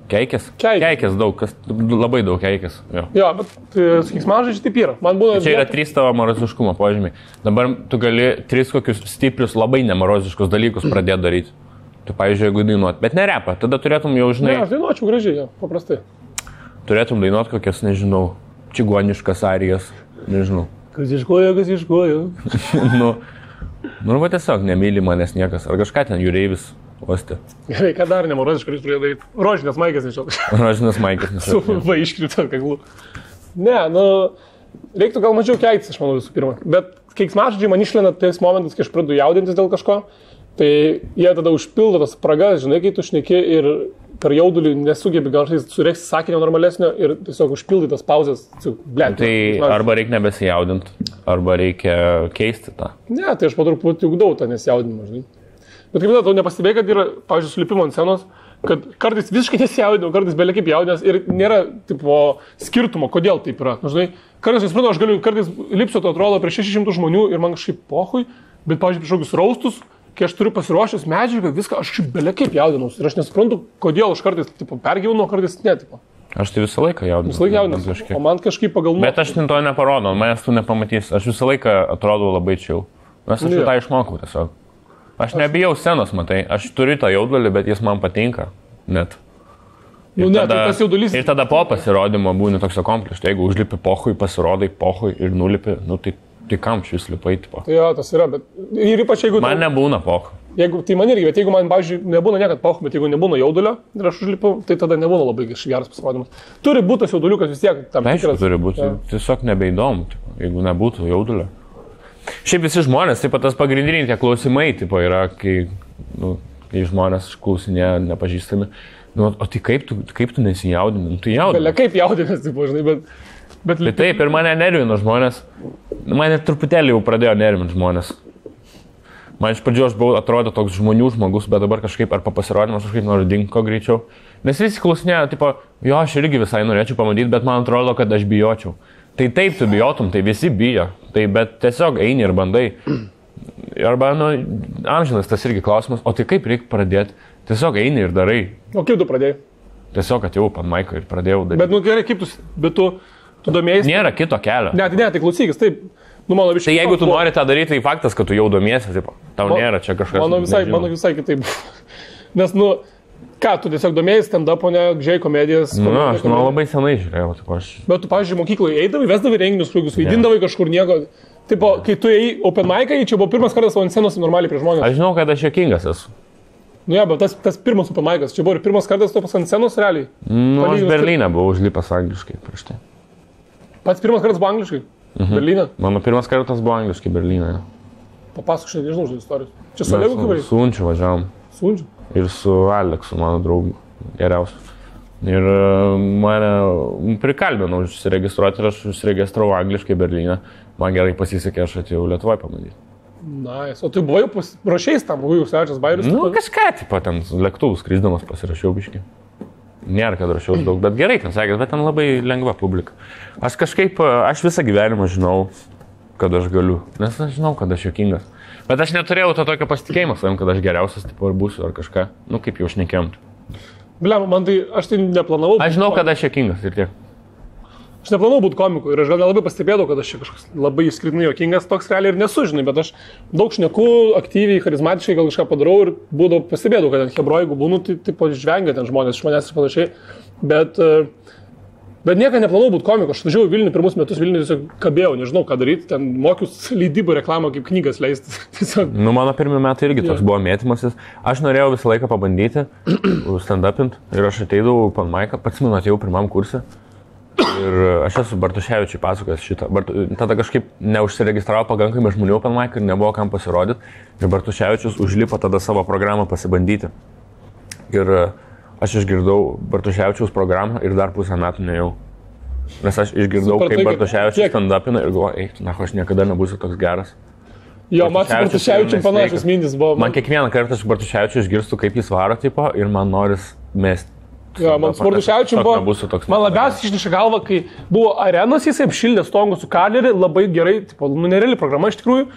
Keikės? Keikės daug, labai daug keikės. Jo, bet sakys, man žodžiai taip yra. Man būna... Čia yra 3 tavo moroziškumo požymiai. Dabar tu gali 3 kokius stiprius, labai nemoroziškus dalykus pradėti daryti. Tu, pavyzdžiui, jeigu dainuot, bet ne repą, tada turėtum jau, žinai... Ne, aš dainuočiau gražiai, jo, paprastai. Turėtum dainuot kokias, nežinau, čigoniškas arijas, nežinau. Kas iškojo. Nu, va tiesiog nemyli manęs niekas. Ar kažką ten jūreivis. Osti. Gerai, ką dar nemoroziškai jūs turėjo daryti? Rožinės maikės nešiau. Rožinės maikės nešiau. Su va iškrito kaklų. Ne, nu, reiktų gal mažiau keiktis, aš manau, visų pirma. Bet keiksmažodžiai man išlenda tais momentais, kai aš pradedu jaudintis dėl kažko, tai jie tada užpildo tas spragas, žinai, kai tu šneki ir per jaudulį nesugebi gal sureikti sakinio normalesnio ir tiesiog užpildai tas pauzes. Tai arba reikia nebesijaudinti, arba reikia keisti tą. Ne, tai aš po truputį ugdau tą nesijaudinimą, žinai. Bet kaip tau nepastebėjai, kad yra, pavyzdžiui, sulipimo ant scenos, kad kartais visiškai nesijaudinu, kartais belia kaip jaudinęs ir nėra tipo skirtumo, kodėl taip yra. Nu, žinai, kartais, suprantu, aš galiu kartais lipsiu, to atrodo, prieš 600 žmonių ir man kažkaip pohui, bet, pavyzdžiui, prieš kokius raustus, kai aš turiu pasiruošęs medžiagą, viską, aš belia kaip jaudinausi ir aš nesuprantu, kodėl aš kartais tipo, pergyvenu, kartais ne. Tipo. Aš tai visą laiką jaudinausi. Visą laiką jaudinausi, o man kažkaip pagal... Bet aš to neparodau, manęs tu nepamatysi, aš visą laiką atrodau labai chill. Nes aš tą išmokau tiesiog. Aš nebijau scenos, matai, aš turiu tą jaudulį, bet jis man patinka, net. Nu, ne, tai tas jaudulys... Ir tada po pasirodymo būni toks akomplištas, jeigu užlipi pohui, pasirodai pohui ir nulipi, nu tai kam šis lipai, tipo. Tai jo, tas yra, bet ir ypač jeigu... Man nebūna pohui. Jeigu, tai man irgi, bet jeigu man, pavyzdžiui, nebūna niekad pohui, bet jeigu nebūna jaudulio ir aš užlipu, tai tada nebūna labai geras pasirodymas. Turi būti tas jauduliukas vis tiek tam tikras. Aišku, turi būti, tiesiog nebeįdomu, tipo, jeigu nebūtų jaudulio. Šiaip visi žmonės, taip pat tas pagrindiniai tie klausimai, tipo, yra, kai žmonės klausinėja nepažįstami, nu, o tai kaip tu nesijaudini? Nu, tai jaudini. Belia kaip jaudinės, tipo, žinai, bet... Tai taip, ir mane nervino žmonės, mane truputėlį jau pradėjo nervinti žmonės. Man iš pradžių aš buvau atrodo toks žmonių žmogus, bet dabar kažkaip ar pasirodymas kažkaip noriu dingti ko greičiau. Nes visi klausinėja, tipo, jo, aš irgi visai norėčiau pamatyti, bet man atrodo, kad aš bijočiau. Tai taip tu bijotum, tai visi bijo, tai bet tiesiog eini ir bandai. Arba, nu, amžinas tas irgi klausimas, o tai kaip reikia pradėti? Tiesiog eini ir darai. O kaip tu pradėjai? Tiesiog atėjau pan maiką ir pradėjau daryti. Bet, nu, gerai, kaip tu domėjai? Nėra kito kelio. Ne, tai klausykis, taip. Nu, mano tai jeigu tu nori tą daryti, tai faktas, kad tu jau domiesi, taip, tau nėra čia kažkas. Mano visai kitaip. Nes, nu, ką, tu tiesiog domėjai stand-up, o ne gžiai komedijas? Nu, aš labai senai žiūrėjau, taip aš. Bet tu, pavyzdžiui, mokykloje eidavai, vesdavai renginius, kuriuos vaidindavai kažkur nieko. Tipo, kai tu ėjai open mic'ą, čia buvo pirmas kartas ant scenos normaliai prie žmonės. Aš žinau, kad aš juokingas esu. Nu, bet tas pirmas open mic'as, čia buvo ir pirmas kartas tu ant scenos realiai. Nu, aš Berlyne buvau užlipęs angliškai prieš tai. Pats pirmas kartas buvo angliškai? Berlyne? Mano pirmas kartas buvo angliškai Berlyne. Papasakok, aš nežinau žodžių istorijos. Čia su Olegu kaip? Su Unčiu važiavom. Su Unčiu? Ir su Aleksu, mano draugu, geriausiu. Ir mane prikalbinau užsiregistruoti ir aš užsiregistravau angliškai Berlyne. Man gerai pasisekė, aš atėjau Lietuvoje pabandyti. Nice. O tu buvai rašiais tam, buvai užsivežęs bairius? Nu, kažką, tipo, ten lėktuvus skrisdamas pasirašiau biškį. Nėra, kad rašiau daug, bet gerai ten sakė, bet ten labai lengva publika. Aš kažkaip, aš visą gyvenimą žinau, kad aš galiu, nes aš žinau, kad aš juokingas. Bet aš neturėjau to tokio pasitikėjimo savim, kad aš geriausias, tipo, ar būsiu, ar kažką. Nu, kaip jau šnekėjom. Bliam, man tai, aš tai neplanavau. Aš žinau, kad aš juokingas ir tiek. Aš neplanavau būti komiku ir aš gal nelabai pastebėjau, kad aš čia kažkoks labai išskirtinai juokingas, toks realiai ir nesu, žinai, bet aš daug šneku, aktyviai, charizmatiškai gal kažką padarau ir būdavo pastebėjau, kad ten hebro, jeigu būnu, tai tipo žvengia ten žmonės iš manęs ir panašiai. Bet niekada neplanavau būti komiku, aš važiavau Vilnių pirmus metus, Vilnių tiesiog kabėjau, nežinau ką daryti, ten mokius leidybą reklamą kaip knygas leisti. Nu, mano pirmi metai irgi toks buvo mėtymasis. Aš norėjau visą laiką pabandyti stand-upint ir aš ateidavau pan maiką, pats man atėjau pirmam kursė. Ir aš esu Bartuševičiui pasakojęs šitą. Tada kažkaip neužsiregistravo pakankamai žmonių pan maiką ir nebuvo kam pasirodyti. Ir Bartuševičius užlipo tada savo programą pasibandyti. Ir aš išgirdau Bartuševičiaus programą ir dar pusę metų nejau. Nes aš išgirdau, kaip Bartuševičius stand-upina ir galvoju, eik, na, aš niekada nebūsiu toks geras. Jo, man su Bartuševičium panašus mintis buvo. Man kiekvieną kartą aš Bartuševičiu išgirstu, kaip jis varo, tipo, ir man noris mesti. Jo, man su Bartuševičium buvo, man labiausiai išniša galva, kai buvo arenos, jisai apšildė stongų su Kalerį, labai gerai, tipo, nereali programa iš tikrųjų.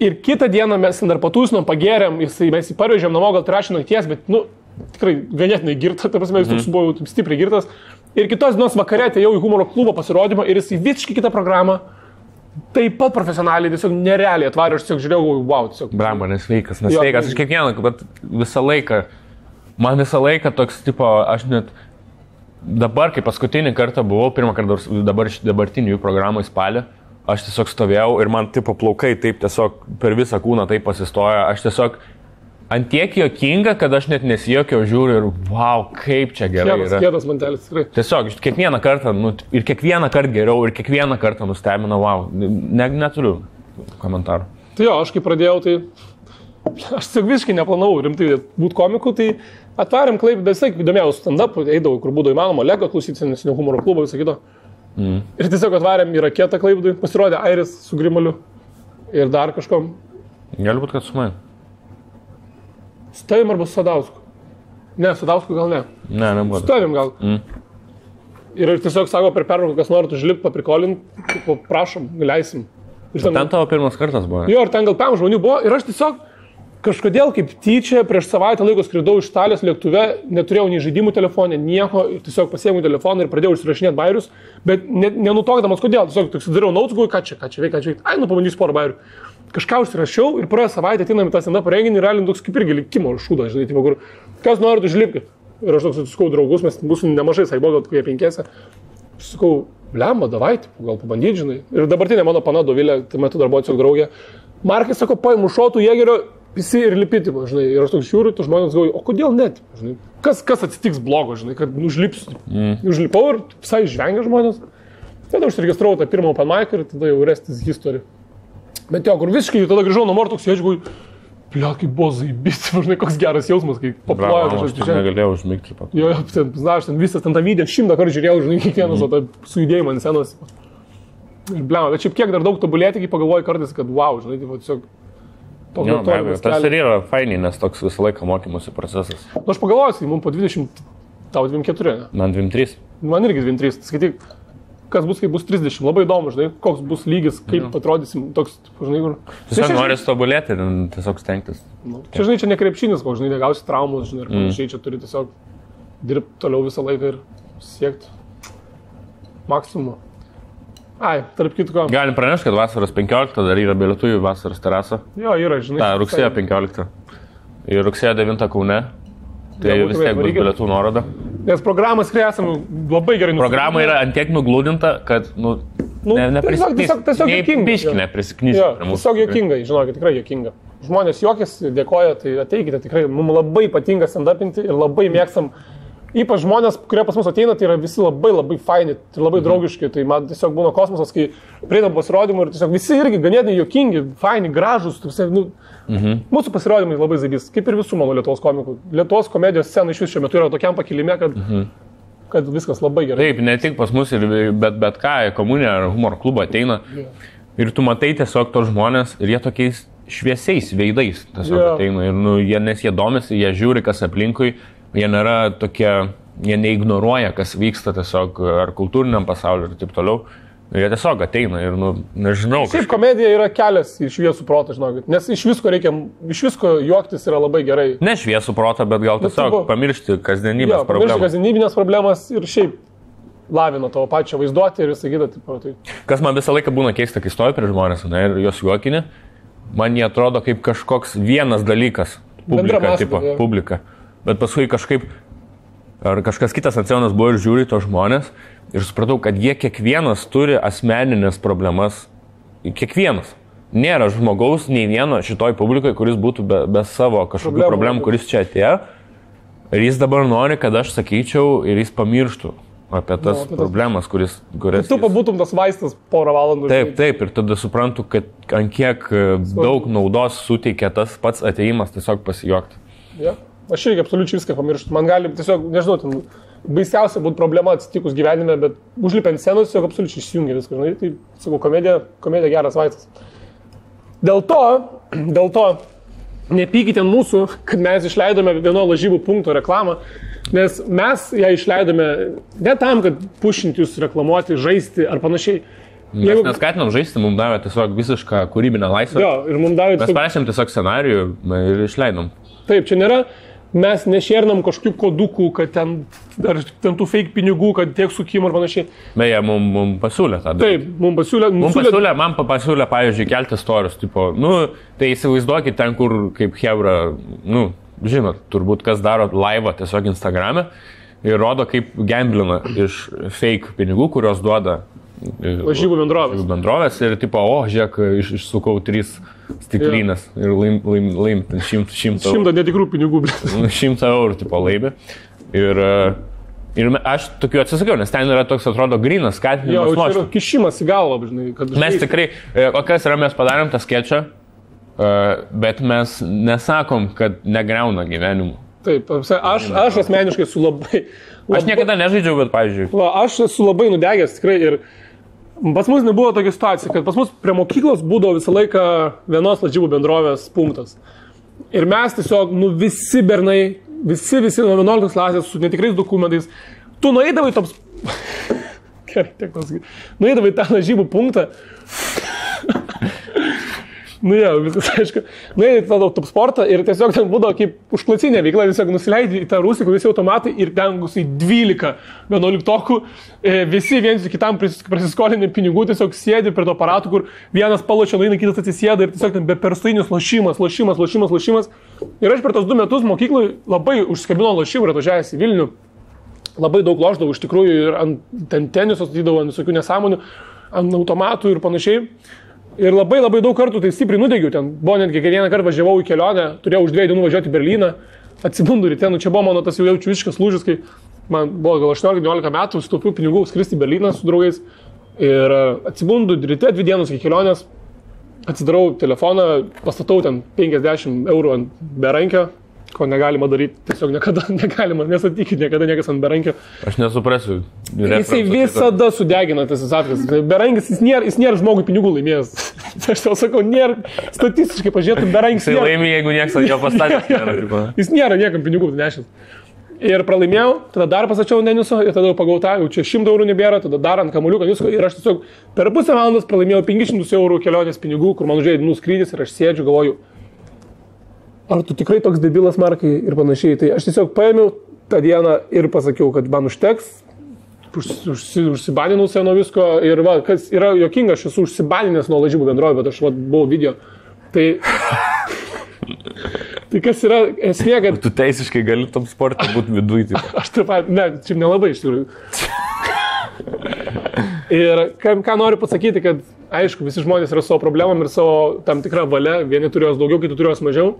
Ir kitą dieną mes dar patūsinom, pagėrėm, mes jį parvežėm namo, gal 3 nakties, bet, nu, tikrai ganėtinai girtas, ta prasme, jis toks buvo stipriai girtas. Ir kitos dienos vakare atėjau į humoro klubo pasirodymą ir jis į visiškai kitą programą, taip pat profesionaliai, tiesiog nerealiai atvarė, aš tiesiog žiūrėjau, wow, tiesiog. Bramba, nesveikas, aš kiekvieną, bet visą laiką. Man visą laiką toks, tipo, aš net dabar, kai paskutinį kartą buvau, pirmą kartą dabartinių jų programų į spalį, aš tiesiog stovėjau ir man, tipo, plaukai taip tiesiog per visą kūną taip pasistojo, aš tiesiog antiek juokinga, kad aš net nesijokiau, žiūriu ir wow, kaip čia gerai yra. Kietas mantelis, tikrai. Tiesiog, kiekvieną kartą, ir kiekvieną kartą geriau, ir kiekvieną kartą nustebina, wow, neturiu komentarų. Tai jo, aš kai pradėjau, tai aš tiesiog visiškai neplanavau rimtai būti komiku, tai atvarėm Klaipėdą, visai įdomėjau stand-up, eidavau, kur būdavo įmanoma, Lego klausyti, nesinių humoro klubo, visą kitą. Ir tiesiog atvarėm į raketą Klaipėdai, pasirodė Airis su Grimaliu ir dar kažkom. Gali būti, kad su manim. Su tavim arba su Sadausku? Ne, su Sadausku gal ne. Ne, nebuvo. Su tavim gal. Ir tiesiog sako, per pertrauką, kas nori užlipti, paprikolint, prašom, leisim. Ten tavo pirmas kartas buvo. Jo, ir ten gal 5 žmonių buvo ir aš tiesiog kažkodėl kaip tyčia prieš savaitę laiko skridau iš Italijos lėktuve, neturėjau nei žaidimų telefonė, nieko, tiesiog pasiėmiau telefoną ir pradėjau užsirašinėti bairius, bet nenutokdamas kodėl, tiesiog toks dariau notes, galvoju, ką čia veikia, ai, nu pabandysiu porą bairių. Kažką užsirašiau ir praėjo savaitę ateinam į tą stand-up renginį ir realiai toks kaip irgi likimo šūdas, žinai, tipo, kur kas norit užlipkit. Ir aš toks susikau draugus, mes mūsų nemažai, sai buvo gal kokie 5. Sakau, blemba, davai, gal pabandyti, žinai. Ir dabartinė mano pana Dovilė, tai metu dar buvo tiesiog draugė. Markai sako, paimu šotų jėgerio, visi ir lipiti, žinai. Ir aš toks žiūriu, tu žmonės galvoju, o kodėl net, žinai. Kas atsitiks blogo, žinai, kad užlipsiu. Užlipau ir visai žvengia žmonės. Tada užsiregistravau tą pirmą open mic ir tada jau restis history. Bet jo, kur visiškai tada grįžau namo ir toks sėdžiu, blia, kaip buvo zaibyti, žinai, koks geras jausmas, kai paplojo. Aš negalėjau užmigti pat. Jo, ten visas ten tą video 100 kartų žiūrėjau, žinai, kiekvienas su judėjimu ant scenos. Ir blia, bet šiaip kiek dar daug tobulėti, kai pagalvoju kartais, kad wow, žinai, tiesiog Jo, be abejo, tas ir yra fainiai, nes toks visą laiką mokymosi procesas. Nu, aš pagalvoju, mums po 20, tau 24, ne? Man 23. Man irgi 23, skaityk, kas bus, kai bus 30, labai įdomu, žinai, koks bus lygis, kaip atrodysim, toks, žinai, kur... Tiesiog nori tobulėti ir tiesiog stengtis. Čia, žinai, čia ne krepšinis, koks, žinai, negausi traumus, žinai, ir panašiai, čia turi tiesiog dirbti toliau visą laiką ir siekti maksimumą. Ai, tarp kitko. Galim pranešti, kad vasaros 15 dar yra bilietų į vasaros terasą. Jo, yra, žinai. Ta, rugsėjo 15. Ir rugsėjo 9 Kaune. Tai vis tiek bus bilietų nuoroda. Nes programas, kai esame labai gerai Programa yra antiek nuglūdinta, kad, Nu, tiesiog juokinga. Biški neprisiknysi. Tiesiog juokinga, žinokit, tikrai juokinga. Žmonės juokėsi, dėkoja, tai ateikite, tikrai mums labai patinka stand-upinti ir labai mėgstam. Ypač žmonės, kurie pas mus ateina, tai yra visi labai faini, tai labai draugiški, tai man tiesiog būna kosmosas, kai prieinam pasirodymų ir tiesiog visi irgi ganėtinai juokingi, faini, gražus, mūsų pasirodymai labai zaibys, kaip ir visų mano Lietuvos komikų. Lietuvos komedijos scena iš vis šiuo metu yra tokiam pakilime, kad viskas labai gerai. Taip, ne tik pas mus, bet ką, komunė ar humoro klubą ateina ir tu matai tiesiog tos žmonės ir jie tokiais šviesiais veidais tiesiog ateina ir nes jie domisi, jie žiūri, kas aplinkui. Jie nėra tokie, jie neignoruoja, kas vyksta tiesiog ar kultūriniam pasauliu ir taip toliau. Jie tiesiog ateina ir, nežinau. Šiaip komedija yra kelias į šviesų protą, žinokit. Nes iš visko juoktis yra labai gerai. Ne šviesų protą, bet gal tiesiog pamiršti kasdienybės problemas. Pamiršti kasdienybinės problemas ir šiaip lavina tavo pačią vaizduotę ir visą kitą. Tai. Kas man visą laiką būna keista, kai stoju prie žmonės ir jos juokinė, man jie atrodo kaip kažkoks vienas dalykas. Publika. Bet paskui kažkaip, ar kažkas kitas ant scenos buvo ir žiūri to žmonės ir supratau, kad jie kiekvienas turi asmeninės problemas. Kiekvienas. Nėra žmogaus nei vieno šitoj publikoje, kuris būtų be savo kažkokių problemų, kuris čia atėjo. Ir jis dabar nori, kad aš sakyčiau ir jis pamirštų apie tas problemas, kurias... Tu pabūtum tas vaistas porą valandų. Taip, ir tada suprantu, kad ant kiek daug naudos suteikia tas pats atėjimas tiesiog pasijuokti. Yeah. Aš irgi absoliučiai viską pamirštu. Man gali tiesiog, nežinau, baisiausia būtų problema atsitikus gyvenime, bet užlipiant scenos tiesiog absoliučiai išsijungia viską. Žinai, tai, sakau, komedija geras vaistas. Dėl to nepykite mūsų, kad mes išleidome vieno lažybų punkto reklamą, nes mes ją išleidome ne tam, kad pušinti jūs reklamuoti, žaisti ar panašiai. Mes neskatinam žaisti, mums davė tiesiog visišką kūrybinę laisvę. Mes parašėm tiesiog scenarijų ir išleidom. Taip, čia nėra. Mes nešernam kažkokių kodukų, kad ten tų fake pinigų, kad tiek sukimų ir panašiai. Beje, mums pasiūlė tą. Taip, mums pasiūlė. Man pasiūlė, pavyzdžiui, kelti storius. Tipo, tai įsivaizduokit ten, kur kaip hebra, žinot, turbūt kas daro laivą tiesiog Instagrame ir rodo, kaip gamblina iš fake pinigų, kurios duoda lažybų bendrovės ir tipo, žiūrėk, išsukau 3 stiklinės ir laim 100 netikrų pinigų. 100 eurų tipo laimė. Ir aš tokiu atsisakiau, nes ten yra toks, atrodo, grynas skatinimas. Tai yra kišimas į galvą, žinai. Mes tikrai, o kas yra, mes padarėm tą skečą, bet mes nesakom, kad negriauna gyvenimų. Taip, aš asmeniškai esu labai... Aš niekada nežaidžiau, bet, pavyzdžiui. Aš esu labai nudegęs, tikrai, ir pas mus nebuvo tokia situacija, kad pas mus prie mokyklos būdavo visą laiką vienos lažybų bendrovės punktas. Ir mes tiesiog, visi bernai, visi nuo 11 klasės su netikrais dokumentais, tu nueidavai tops... Gerai, tiek pasakyti. Nueidavai tą lažybų punktą. Viskas aišku. Nueidai tą top sportą ir tiesiog ten būdavo kaip užklasinė veikla, tiesiog nusileidai į tą rūsį, visi automatai ir ten 12 11-okų, visi viens kitam prasiskolinė pinigų, tiesiog sėdi prie to aparatų, kur vienas palošia, nueina, kitas atsisėda ir tiesiog ten be perstainis lošimas. Ir aš per tos 2 metus mokyklai labai užskabino lošimų ir atvažiavęs į Vilnių. Labai daug lošdavau iš tikrųjų ir ant teniso statydavau, ant visokių nesąmonių, ant automatų ir panašiai. Ir labai daug kartų tai stipriai nudegiau. Ten buvo netgi vieną kartą važiavau į kelionę, turėjau už 2 dienų važiuoti į Berlyną, atsibundu ryte, čia buvo mano tas jau jaučiu visiškas lūžis, kai man buvo gal 18-19 metų, sutaupiau pinigų skristi į Berlyną su draugais. Ir atsibundu ryte 2 dienos iki kelionės, atsidarau telefoną, pastatau ten 50 eurų ant berankio, ko negalima daryti, tiesiog negalima, nesatykit, niekada niekas ant berankio. Aš nesuprasiu. Jisai visada sudegina tas atkas. Berankis, jis nėra žmogui pinigų laimėjęs. Aš tau sakau, nėra, statistiškai pažiūrėtum, berankis. Jisai laimė, jeigu niekas jo pastatė. Jis nėra niekam pinigų nešęs. Ir pralaimėjau, tada dar pasačiau Deniso ir tada pagautau, jau čia 100 eurų nebėra, tada dar ant kamuoliuko visko ir aš tiesiog per pusę valandos pralaimėjau 500 eurų kelionės pinigų, kur man užėjo dienų skrydis ir aš sėdžiu, galvoju, ar tu tikrai toks debilas, Markai, ir panašiai. Tai aš tiesiog paėmiau tą dieną ir pasakiau, kad man užteks, užsibaninau save nuo visko ir va, kas yra jokinga, aš esu užsibaninęs nuo lažybų bendrovė, bet aš buvau video. Tai kas yra esmė, kad... Tu teisiškai gali tam sportą būti viduje. Aš taip pat, ne, čia nelabai iš tikrųjų. Ir ką noriu pasakyti, kad aišku, visi žmonės yra savo problemom ir savo tam tikrą valią, vieni turi jos daugiau, kiti turi jos mažiau.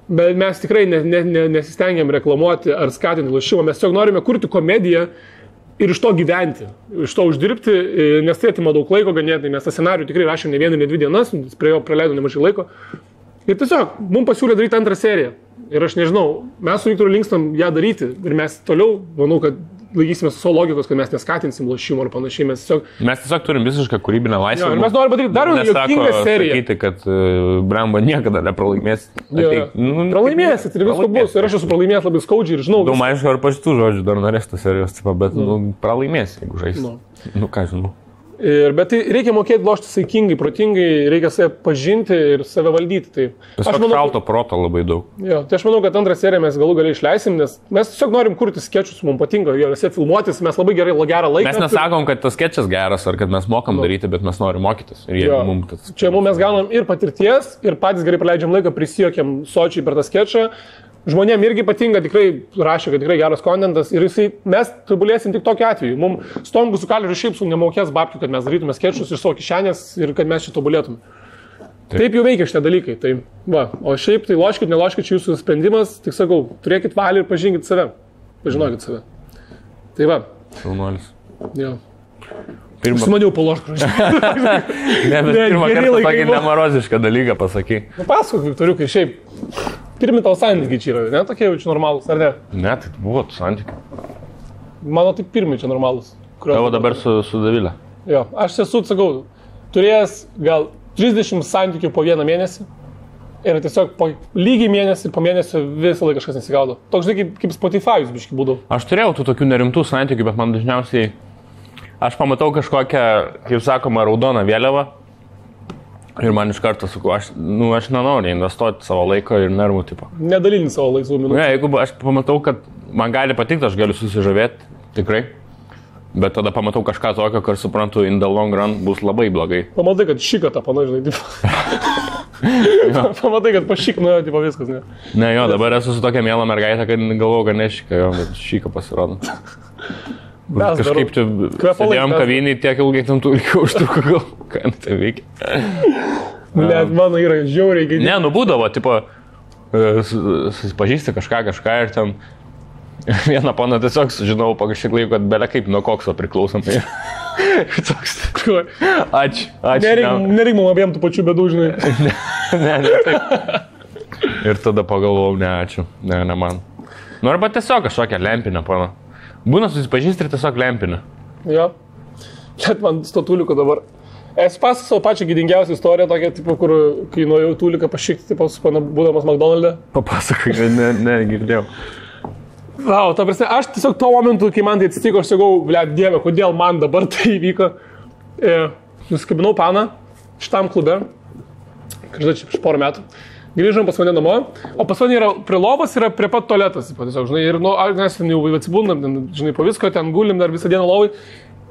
Bet mes tikrai nesistengiam reklamuoti ar skatinti lošimą, mes tiesiog norime kurti komediją ir iš to gyventi, iš to uždirbti, nes tai atima daug laiko ganėtinai, mes tą scenarijų tikrai rašėm ne 1, ne 2 dienas, prie jo praleidom nemažai laiko. Ir tiesiog mums pasiūlė daryti antrą seriją. Ir aš nežinau, mes su Viktoru linkstam ją daryti ir mes toliau, manau, kad laikysime su savo logikos, kad mes neskatinsim lošimo ar panašiai. Mes tiesiog turim visišką kūrybinę laisvę. Ir mes norime padaryti dar vieną juokingą seriją. Sakyti, kad Bramba niekada nepralaimės. Pralaimėsit ir visko bus. Ir aš esu pralaimėjęs labai skaudžiai ir žinau. Aišku, ar po šitų žodžių dar norės tos serijos, bet pralaimės, jeigu žais. Ką žinau. Bet tai reikia mokėti lošti saikingai, protingai, reikia save pažinti ir save valdyti. Tai aš manau, šalto proto labai daug. Jo, tai aš manau, kad antrą seriją mes galų galiai išleisim, nes mes tiesiog norim kurti skečus, mums patinka juose filmuotis, mes labai gerą laiką. Mes nesakom, kad tas skečas geras ar kad mes mokam daryti, bet mes norim mokytis. Čia mes gaunam ir patirties, ir patys gerai praleidžiam laiką, prisijokiam sočiai per tą skečą. Žmonėm irgi patinka, tikrai rašė, kad tikrai geras kontentas ir mes tobulėsim tik tokiu atveju. Mums Stongus su Kaleriu šiaip su nemokės babkių, kad mes darytume skečus iš savo kišenės ir kad mes čia tobulėtume. Taip jau veikia šitie dalykai. Tai, o šiaip tai loškit, neloškit, čia jūsų sprendimas, tik sakau, turėkit valią ir pažinkit save. Pažinokit save. Tai va. Šaunuolis. Jo. Aš maniau paloškų. Ne, bet pirmą kartą tokį nemarozišką dalyką pasakai. Pasakok, Viktoriukai, šiaip. Pirmi tavo santykiai čia yra, ne tokie jau čia normalūs, ar ne? Ne, tai buvo santykiai. Mano tik pirmi čia normalūs. Tavo dabar su Davilė. Jo, aš esu, sakau, turėjęs gal 30 santykių po 1 mėnesį. Ir tiesiog po lygiai mėnesį, po mėnesio visą laiką kažkas nesigaudo. Toks žinai, kaip Spotify'us biškai būdavo. Aš turėjau tų tokių nerimtų santykių, bet man dažniausiai... Aš pamatau kažkokią, kaip sakoma, raudoną vėliavą. Ir man iš karto sakau, aš nenoriu investuoti savo laiko ir nervų tipo. Nedalinti savo laisvų minučių. Ne, jeigu aš pamatau, kad man gali patikti, aš galiu susižavėti, tikrai. Bet tada pamatau kažką tokio, kur suprantu, in the long run bus labai blogai. Pamatai, kad šikata, panažinai, tipo. Pamatai, kad pašik nuėjo, tipo viskas, ne? Ne, jo, dabar esu su tokia miela mergaitė, kad galvoju, kad nešika, jo, bet šika pasirodo. Kažkaip čia sėdėjom kavinį, tiek ilgai tam tų ilgiau užtruko, gal, ką tai veikia. Net mano yra žiauriai gėdė. Ne, būdavo, tipo, susipažįsti kažką ir ten vieną paną tiesiog sužinau po kažkiek laiko, kad belia kaip nuo kokso priklausomai. Ačiū. Nereik mum abiem tų pačių bėdų, žinai. Ne, taip. Ir tada pagalvojau, ne, ačiū, ne man. Nu, arba tiesiog kažkokią lempinę paną. Būna susipažįsti ir tiesiog lempinę. Jo. Net man statuliuko dabar. Esu pasakojęs savo pačią gėdingiausią istoriją, tokia, tipo, kur kai nuėjau tuliką pašikti, tipo, būdamas McDonald'e. Papasakok, ne, girdėjau. Vau, ta prasme, aš tiesiog tuo momentu, kai man tai atsitiko, aš sakau, blet, dieve, kodėl man dabar tai įvyko. Nusikabinau paną šitam klube, kažkai čia prieš porą metų. Grįžom pas mane namo, o pas mane yra prie lovos, yra prie pat tualetas, tiesiog, žinai, ir mes ten jau atsibūnam, žinai, po visko, ten gulim dar visą dieną lovai.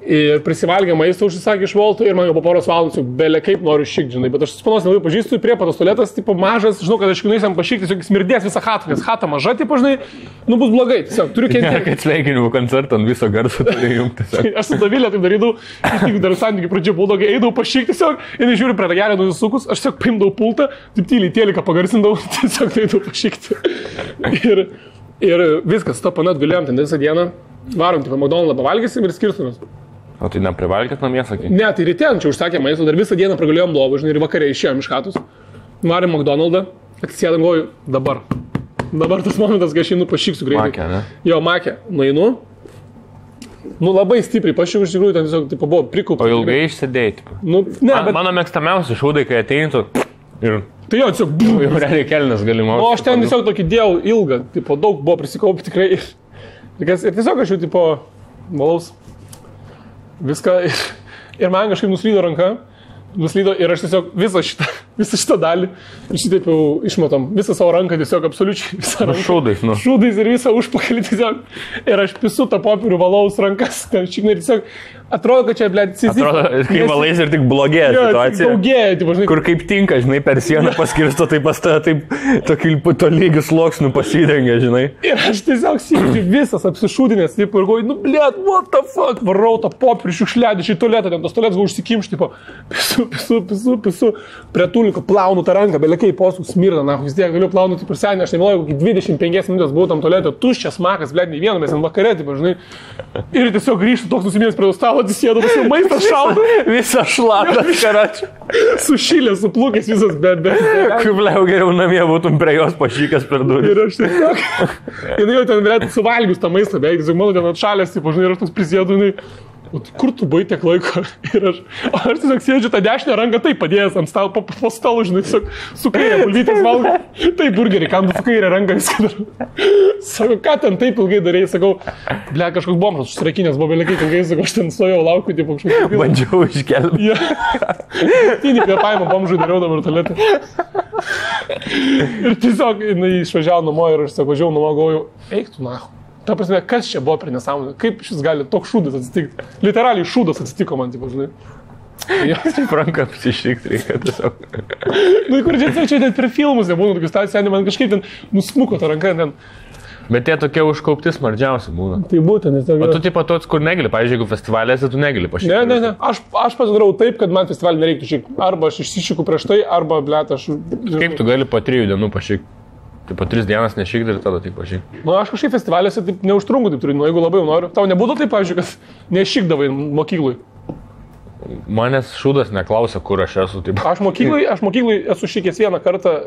Ir prisivalgė maistą užsisakė iš Volto ir man jau po poros valandų belia kaip noriu šikti, žinai, bet aš spanos nelabai pažįstu, prie patos tualetas, tipo mažas, žinau, kad aš nueisiam pašikti, tiesiog smirdės visą chatą, nes chata maža, tipo, žinai, nu bus blogai, tiesiog turiu kentėti. Kad sveikinimų koncertą ant viso garso turi jungti. Aš su Davilė taip darydavau, tik dar santykių pradžio buldogai, eidavau pašikti tiesiog, ir žiūriu prie ragelio nusisukus, aš tiesiog paimdavau pultą, taip tyliai tėliką pagarsindavau, tiesiog eidavau pašikti. Ir viskas, to panat gulėjom ten visą dieną, varom, tipo, McDonald'ą pavalgysim ir skirstumės. O tai neprivalgėt namie, sakai? Ne, tai ryte čia užsakė maistą, dar visą dieną pragulėjom lovą, žinai, ir vakarė išėjom iš chatos. Varėm McDonald'ą, atsisėdam, galvoju, dabar tas momentas, kai aš einu pašiksiu greitai. Makė, ne? Jo, makė, nueinu. Nu, labai stipriai pašiksiu, iš tikrųjų, ten tiesiog, tipo, buvo prikūpta. O ilgai išsėdėjai, tipo? Nu, ne, bet... Mano mėgstamiausi šūdai, kai ateintų ir... Tai jo, tiesiog... Jau realiai kelnes galimau. O aš ten tiesiog tokį dėjau ilgą, tipo, daug buvo prisikaupę tikrai. Ir tiesiog aš jau, tipo, valaus. Viską ir man kažkaip nuslydo ranka, ir aš tiesiog visą šitą visą šitą dalį. Ir šitaip jau išmatom visą savo ranką, tiesiog absoliučiai visą ranką. Šūdais, nu. Šūdais ir visą užpakalį tiesiog. Ir aš pisu tą popierių valaus rankas. Ten šiknai tiesiog atrodo, kad čia, blėt, cizis. Atrodo, kai valais ir tik blogėja situacija. Daugėja, tipo, žinai. Kur kaip tinka, žinai, per sieną paskirsto, tai pas tave taip tokių tolygių sluoksnių pasidengia, žinai. Ir aš tiesiog sėdžiu visas apsišūdinęs, taip, ir galvoju, nu, blėt, what the fuck, varau tą popierių šiukšliadį, šį tualetą, ten tos tualetas buvo užsikimšti, tipo, pisu, prie tuliko plaunu tą ranką, belekai posų smirda, na, vis tiek galiu plaunuti per senį, aš nemeluoju, kokį 25 minutės buvau tam tualetą, tuščias makas, blėt, nei vieno, mes ant vakarė, tipo, žinai. Ir tiesiog grįžtu toks nusiminęs prie stalo, atsisėdu, maistas šalta. Visą šlapas, karačiu. Sušilęs, suplūkęs visas, bet. Kaip liau geriau namie būtum prie jos pašykęs per durį. Ir aš tiesiog, jinai jau ten galėtų suvalgius tą maistą, beveik, tiesiog mano ten atšalęs, tipo, žinai, ir aš toks prisėdu, jinai, o tai kur tu buvai tiek laiko? Ir aš tiesiog sėdžiu tą dešinę ranką taip padėjęs ant stalo, po stalo, žinai, tiesiog su kairė bulvytės valgai. Tai burgerį, kam tu su kairė ranką viską darau. Sako, ką ten taip ilgai darėjai, sakau, ble, kažkoks bomžas užsirakinęs, buvo belekai ilgai, sakau, aš ten stojau laukiu, tipo kažkoks. Bandžiau iškelti. Ja. Tinį kvėpavimą bomžui dariau dabar tualetą. Ir tiesiog, jinai išvažiavo namo ir aš sakau, važiavau namo, galvoju, eik tu nahu. Ta prasme, kas čia buvo per nesąmonę? Kaip šis gali toks šūdas atsitikti? Literaliai šūdas atsitiko man, tipo, žinai. Taip ranką apsišikti reikia tiesiog. Nu, kur čia net per filmus nebūna, tokius situacijų, man kažkaip ten nusmuko tą ranką ten. Bet tie tokie užkaupti smardžiausi būna. Tai būtent, nes o tu tipo toks, kur negali, pavyzdžiui, jeigu festivalėse, tu negali pašykti. Ne. Aš pasidarau taip, kad man festivalį nereiktų šykti. Arba aš išsišiku prieš tai, arba, blėt, aš... Kaip tu gali po 3 dienų pašykti? Tai po 3 dienas nešykti ir tada taip pašykti. Nu, aš kažkaip festivaliuose taip neužtrunku, taip turiu, nu, jeigu labai noriu. Tau nebūtų taip, pavyzdžiui, kad nešykdavai mokyklui. Manęs šūdas neklausia, kur aš esu. Taip. Aš mokyklui esu šykęs vieną kartą,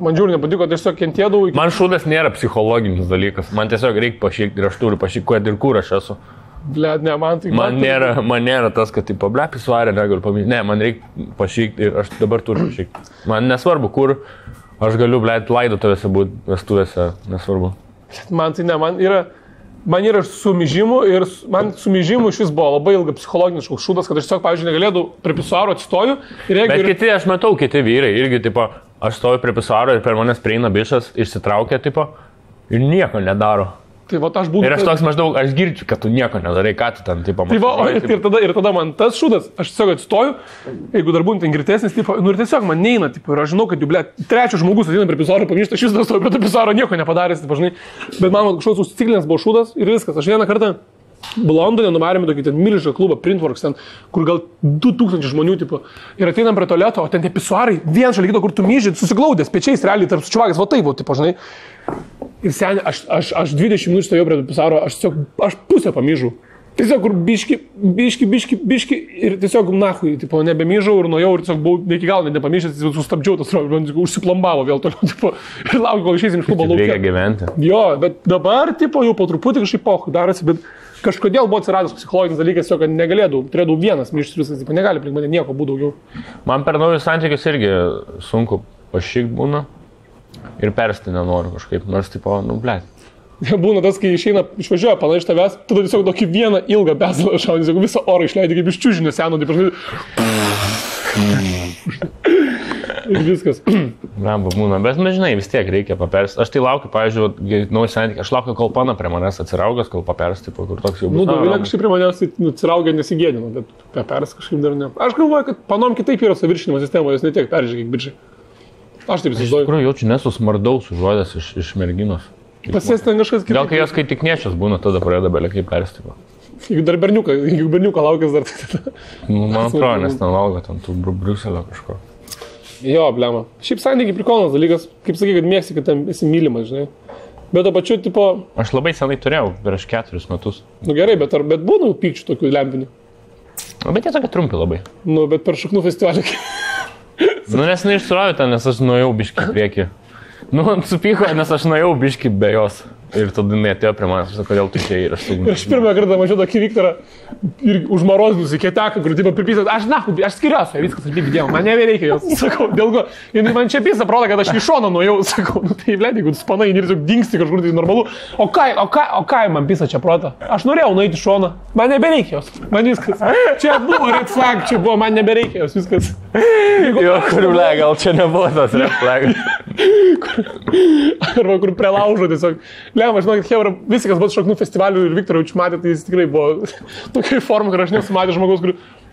man žiūri nepatiko, tiesiog kentėdavau. Man šūdas nėra psichologinis dalykas, man tiesiog reikia pašykti ir aš turiu pašykti, ir kur aš esu. Blet, ne, man tai... Man nėra tas, kad tipo, ble, pisuarė, negaliu paminėti. Ne, man reikia pašykti ir aš dabar turiu pašykti. Man nesvarbu, kur aš galiu, ble, laidotuvėse būti, vestuvėse, nesvarbu. Man tai ne, man yra sumižimų ir man sumižimų iš vis buvo labai ilga psichologinis šūdas, kad aš tiesiog, pavyzdžiui, negalėdau prie pisuaro atsistoju. Bet kiti, aš matau, kiti vyrai irgi, tipo, aš stoju prie pisuaro ir per manęs prieina bišas, išsitraukia, tipo, ir nieko nedaro. Tai va, aš būtų... Ir aš toks maždaug, aš girdžiu, kad tu nieko nedarai, ką tu ten, tipo, mažai. Tai va, ir tada man tas šūdas, aš tiesiog atsistoju, jeigu dar būtų ten girtesnis, tipo, nu ir tiesiog man neina, tipo, ir aš žinau, kad jau, ble, trečias žmogus ateina prie pisaro, pagrįžta, aš vis dar stoju prie to pisaro, nieko nepadaręs, tipo, žinai. Bet man kažkoks užsiciklinęs buvo šūdas ir viskas. Aš vieną kartą Londone nuvarėme tokį ten milžinišką klubą, Printworks, ten, kur gal 2000 žmonių, tipo, ir ateinam prie tualeto, o ten tie pisuarai, vien šalia kito, kur tu myži, susiglaudęs, pečiais, realiai, tarp sučiuvagės, va taip, tipo, žinai. Ir seniai, aš 20 minučių stovėjau prie pisaro, aš pusę pamyžau. Tiesiog, kur biški ir tiesiog nahui, tipo, nebemyžau ir nuėjau ir tiesiog buvau iki galo nepamyžęs, sustabdžiau tas traukas, užsiplombavo vėl toliau, tipo, ir laukiu, kol išeisim iš klubo lauke. Reikia gyventi. Jo, bet dabar, tipo, jau po truputį kažkaip pohui darosi, bet kažkodėl buvo atsiradęs psichologinis dalykas, kad negalėdavau, turėdavau vienas myžtis viskas, tipo, negali aplink mane nieko būti daugiau. Man per naujus santykius irgi sunku pašykt būna ir persti nenoriu kažkaip, nors, tipo, nu, blėt. Būna tas, kai išvažiuoja pana iš tavęs, tada tiesiog tokį vieną ilgą bezalą šaudį, tiesiog visą orą išleidai kaip iš čiužinio seno, taip ir viskas. Ramba būna, bet nežinai, vis tiek reikia papersti. Aš tai laukiu, pavyzdžiui, naujas santykis, aš laukiu, kol pana prie manęs atsiraugęs, kol papersti, tipo, kur toks jau bus. Nu, Dovilė kažkaip prie manęs atsiraugė nesigėdino, bet papersti kažkaip dar ne. Aš galvoju, kad panom kitaip yra saviršinimo sistema, jos ne tiek peržiūrė, kiek bičiai. Aš taip įsivaizduoju. Iš tikrųjų, jaučiu nesusmardaus užuodęs iš merginos. Pasės ten kažkas kitas. Gal kai jos kai tik nečias būna, tada pradeda belekai perstyvo. Jeigu dar berniuką laukęs dar tada. Nu, man atrodo, nes ten valgo ten tų Briuselio kažko. Jo, blema. Šiaip santykiai prikolas dalykas, kaip sakai, kad mėgsi, kad ten esi mylimas, žinai. Bet to pačiu, tipo... Aš labai senai turėjau, prieš 4 metus. Nu gerai, bet būna pykčių tokių lempinių? Nu, bet jie tokie trumpi labai. Nu, bet per šaknų festivalį. Nu, nes neišsuravė ten, nes aš nuėjau biškį priekį. Nu, supyko, nes aš nuėjau biškį be jos. Ir tada jinai atėjo prie manęs, sakau, kodėl tu čia ir aš sugundžiau. Ir aš pirmą kartą mačiau tokį Viktorą ir užmarozinus į kieteką, kur tipo pripysat, aš skiriuosi, viskas atlyg dėjau, man nebereikia jos, sakau, dėl ko. Ir man čia pisa proda, kad aš iš šono nuėjau, sakau, nu tai blėt, jeigu tu spanai ir tiesiog dingsti kažkur, tai normalu. O ką man pisa čia proda? Aš norėjau nueiti iš šono, man nebereikia jos, man viskas. Čia buvo red flag, čia buvo, man nebereikia jos, viskas. Jo, kur ble, gal čia nebuvo tas red flagas. Arba kur prie laužo tiesiog. Lema, žinokit, Hebra, visi, kas buvo šoknų festivalių ir Viktorovич matė, tai jis tikrai buvo tokia forma, kur aš nesu matęs žmogaus, kur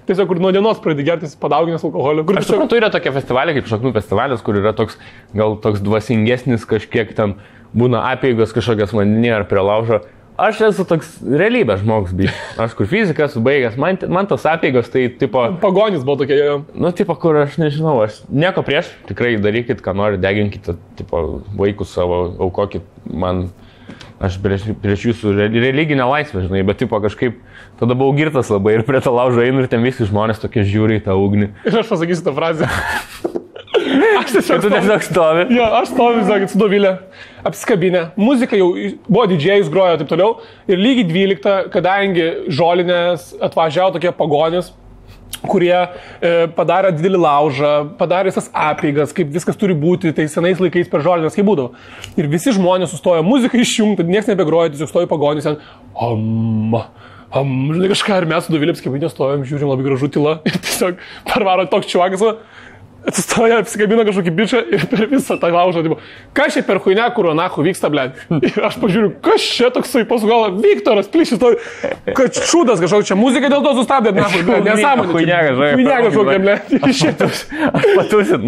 tiesiog kur nuo dienos pradė gertis padauginęs alkoholio. Aš suprantu, yra tokie festivaliai kaip šoknų festivalis, kur yra toks, gal toks dvasingesnis, kažkiek ten būna apeigos kažkokias vandenyje ar prie laužo. Aš esu toks realybės žmogus, bet aš kur fizikas baigęs, man tos apeigos tai tipo... Pagonis buvo tokie, jo. Nu, tipo, kur aš nežinau, aš nieko prieš, tikrai darykit, ką nori, deginkite, tipo, vaikus savo, aukokit man, aš prieš jūsų religinę laisvę, žinai, bet tipo kažkaip tada buvau girtas labai ir prie to laužo einu ir ten visi žmonės tokie žiūri į tą ugnį. Ir aš pasakysiu tą frazę. Aš tiesiog stovi. Jo, aš stoviu, sakykit, su Dovilė, apsikabinę. Muzika jau buvo didžėjus, grojo ir taip toliau. Ir lygiai 12, kadangi žolinės atvažiavo tokie pagonis, kurie padarė didelį laužą, padarė visas apeigas, kaip viskas turi būti, tai senais laikais per žolinės kaip būdavo. Ir visi žmonės sustojo, muzika išjungta, niekas nebegrojo, tiesiog stojo pagonis ten. Žinai kažką, ir mes su Dovilė apsikabinę stovėm, žiūrim, labai gražu tyla. Ir tiesiog parvaro toks čiuakas. Atsistoja, apsikabina kažkokį bičią ir per visą tą laužą, tipo, kas čia per huinę, kur anachu vyksta, ble. Ir aš pažiūriu, kas čia toksai, pasugalvo, Viktoras, plyšis, kad šūdas kažkokia, čia muzika dėl to sustabdė, nesąmonė. Huinė kažkokia, ble. Aš patusit,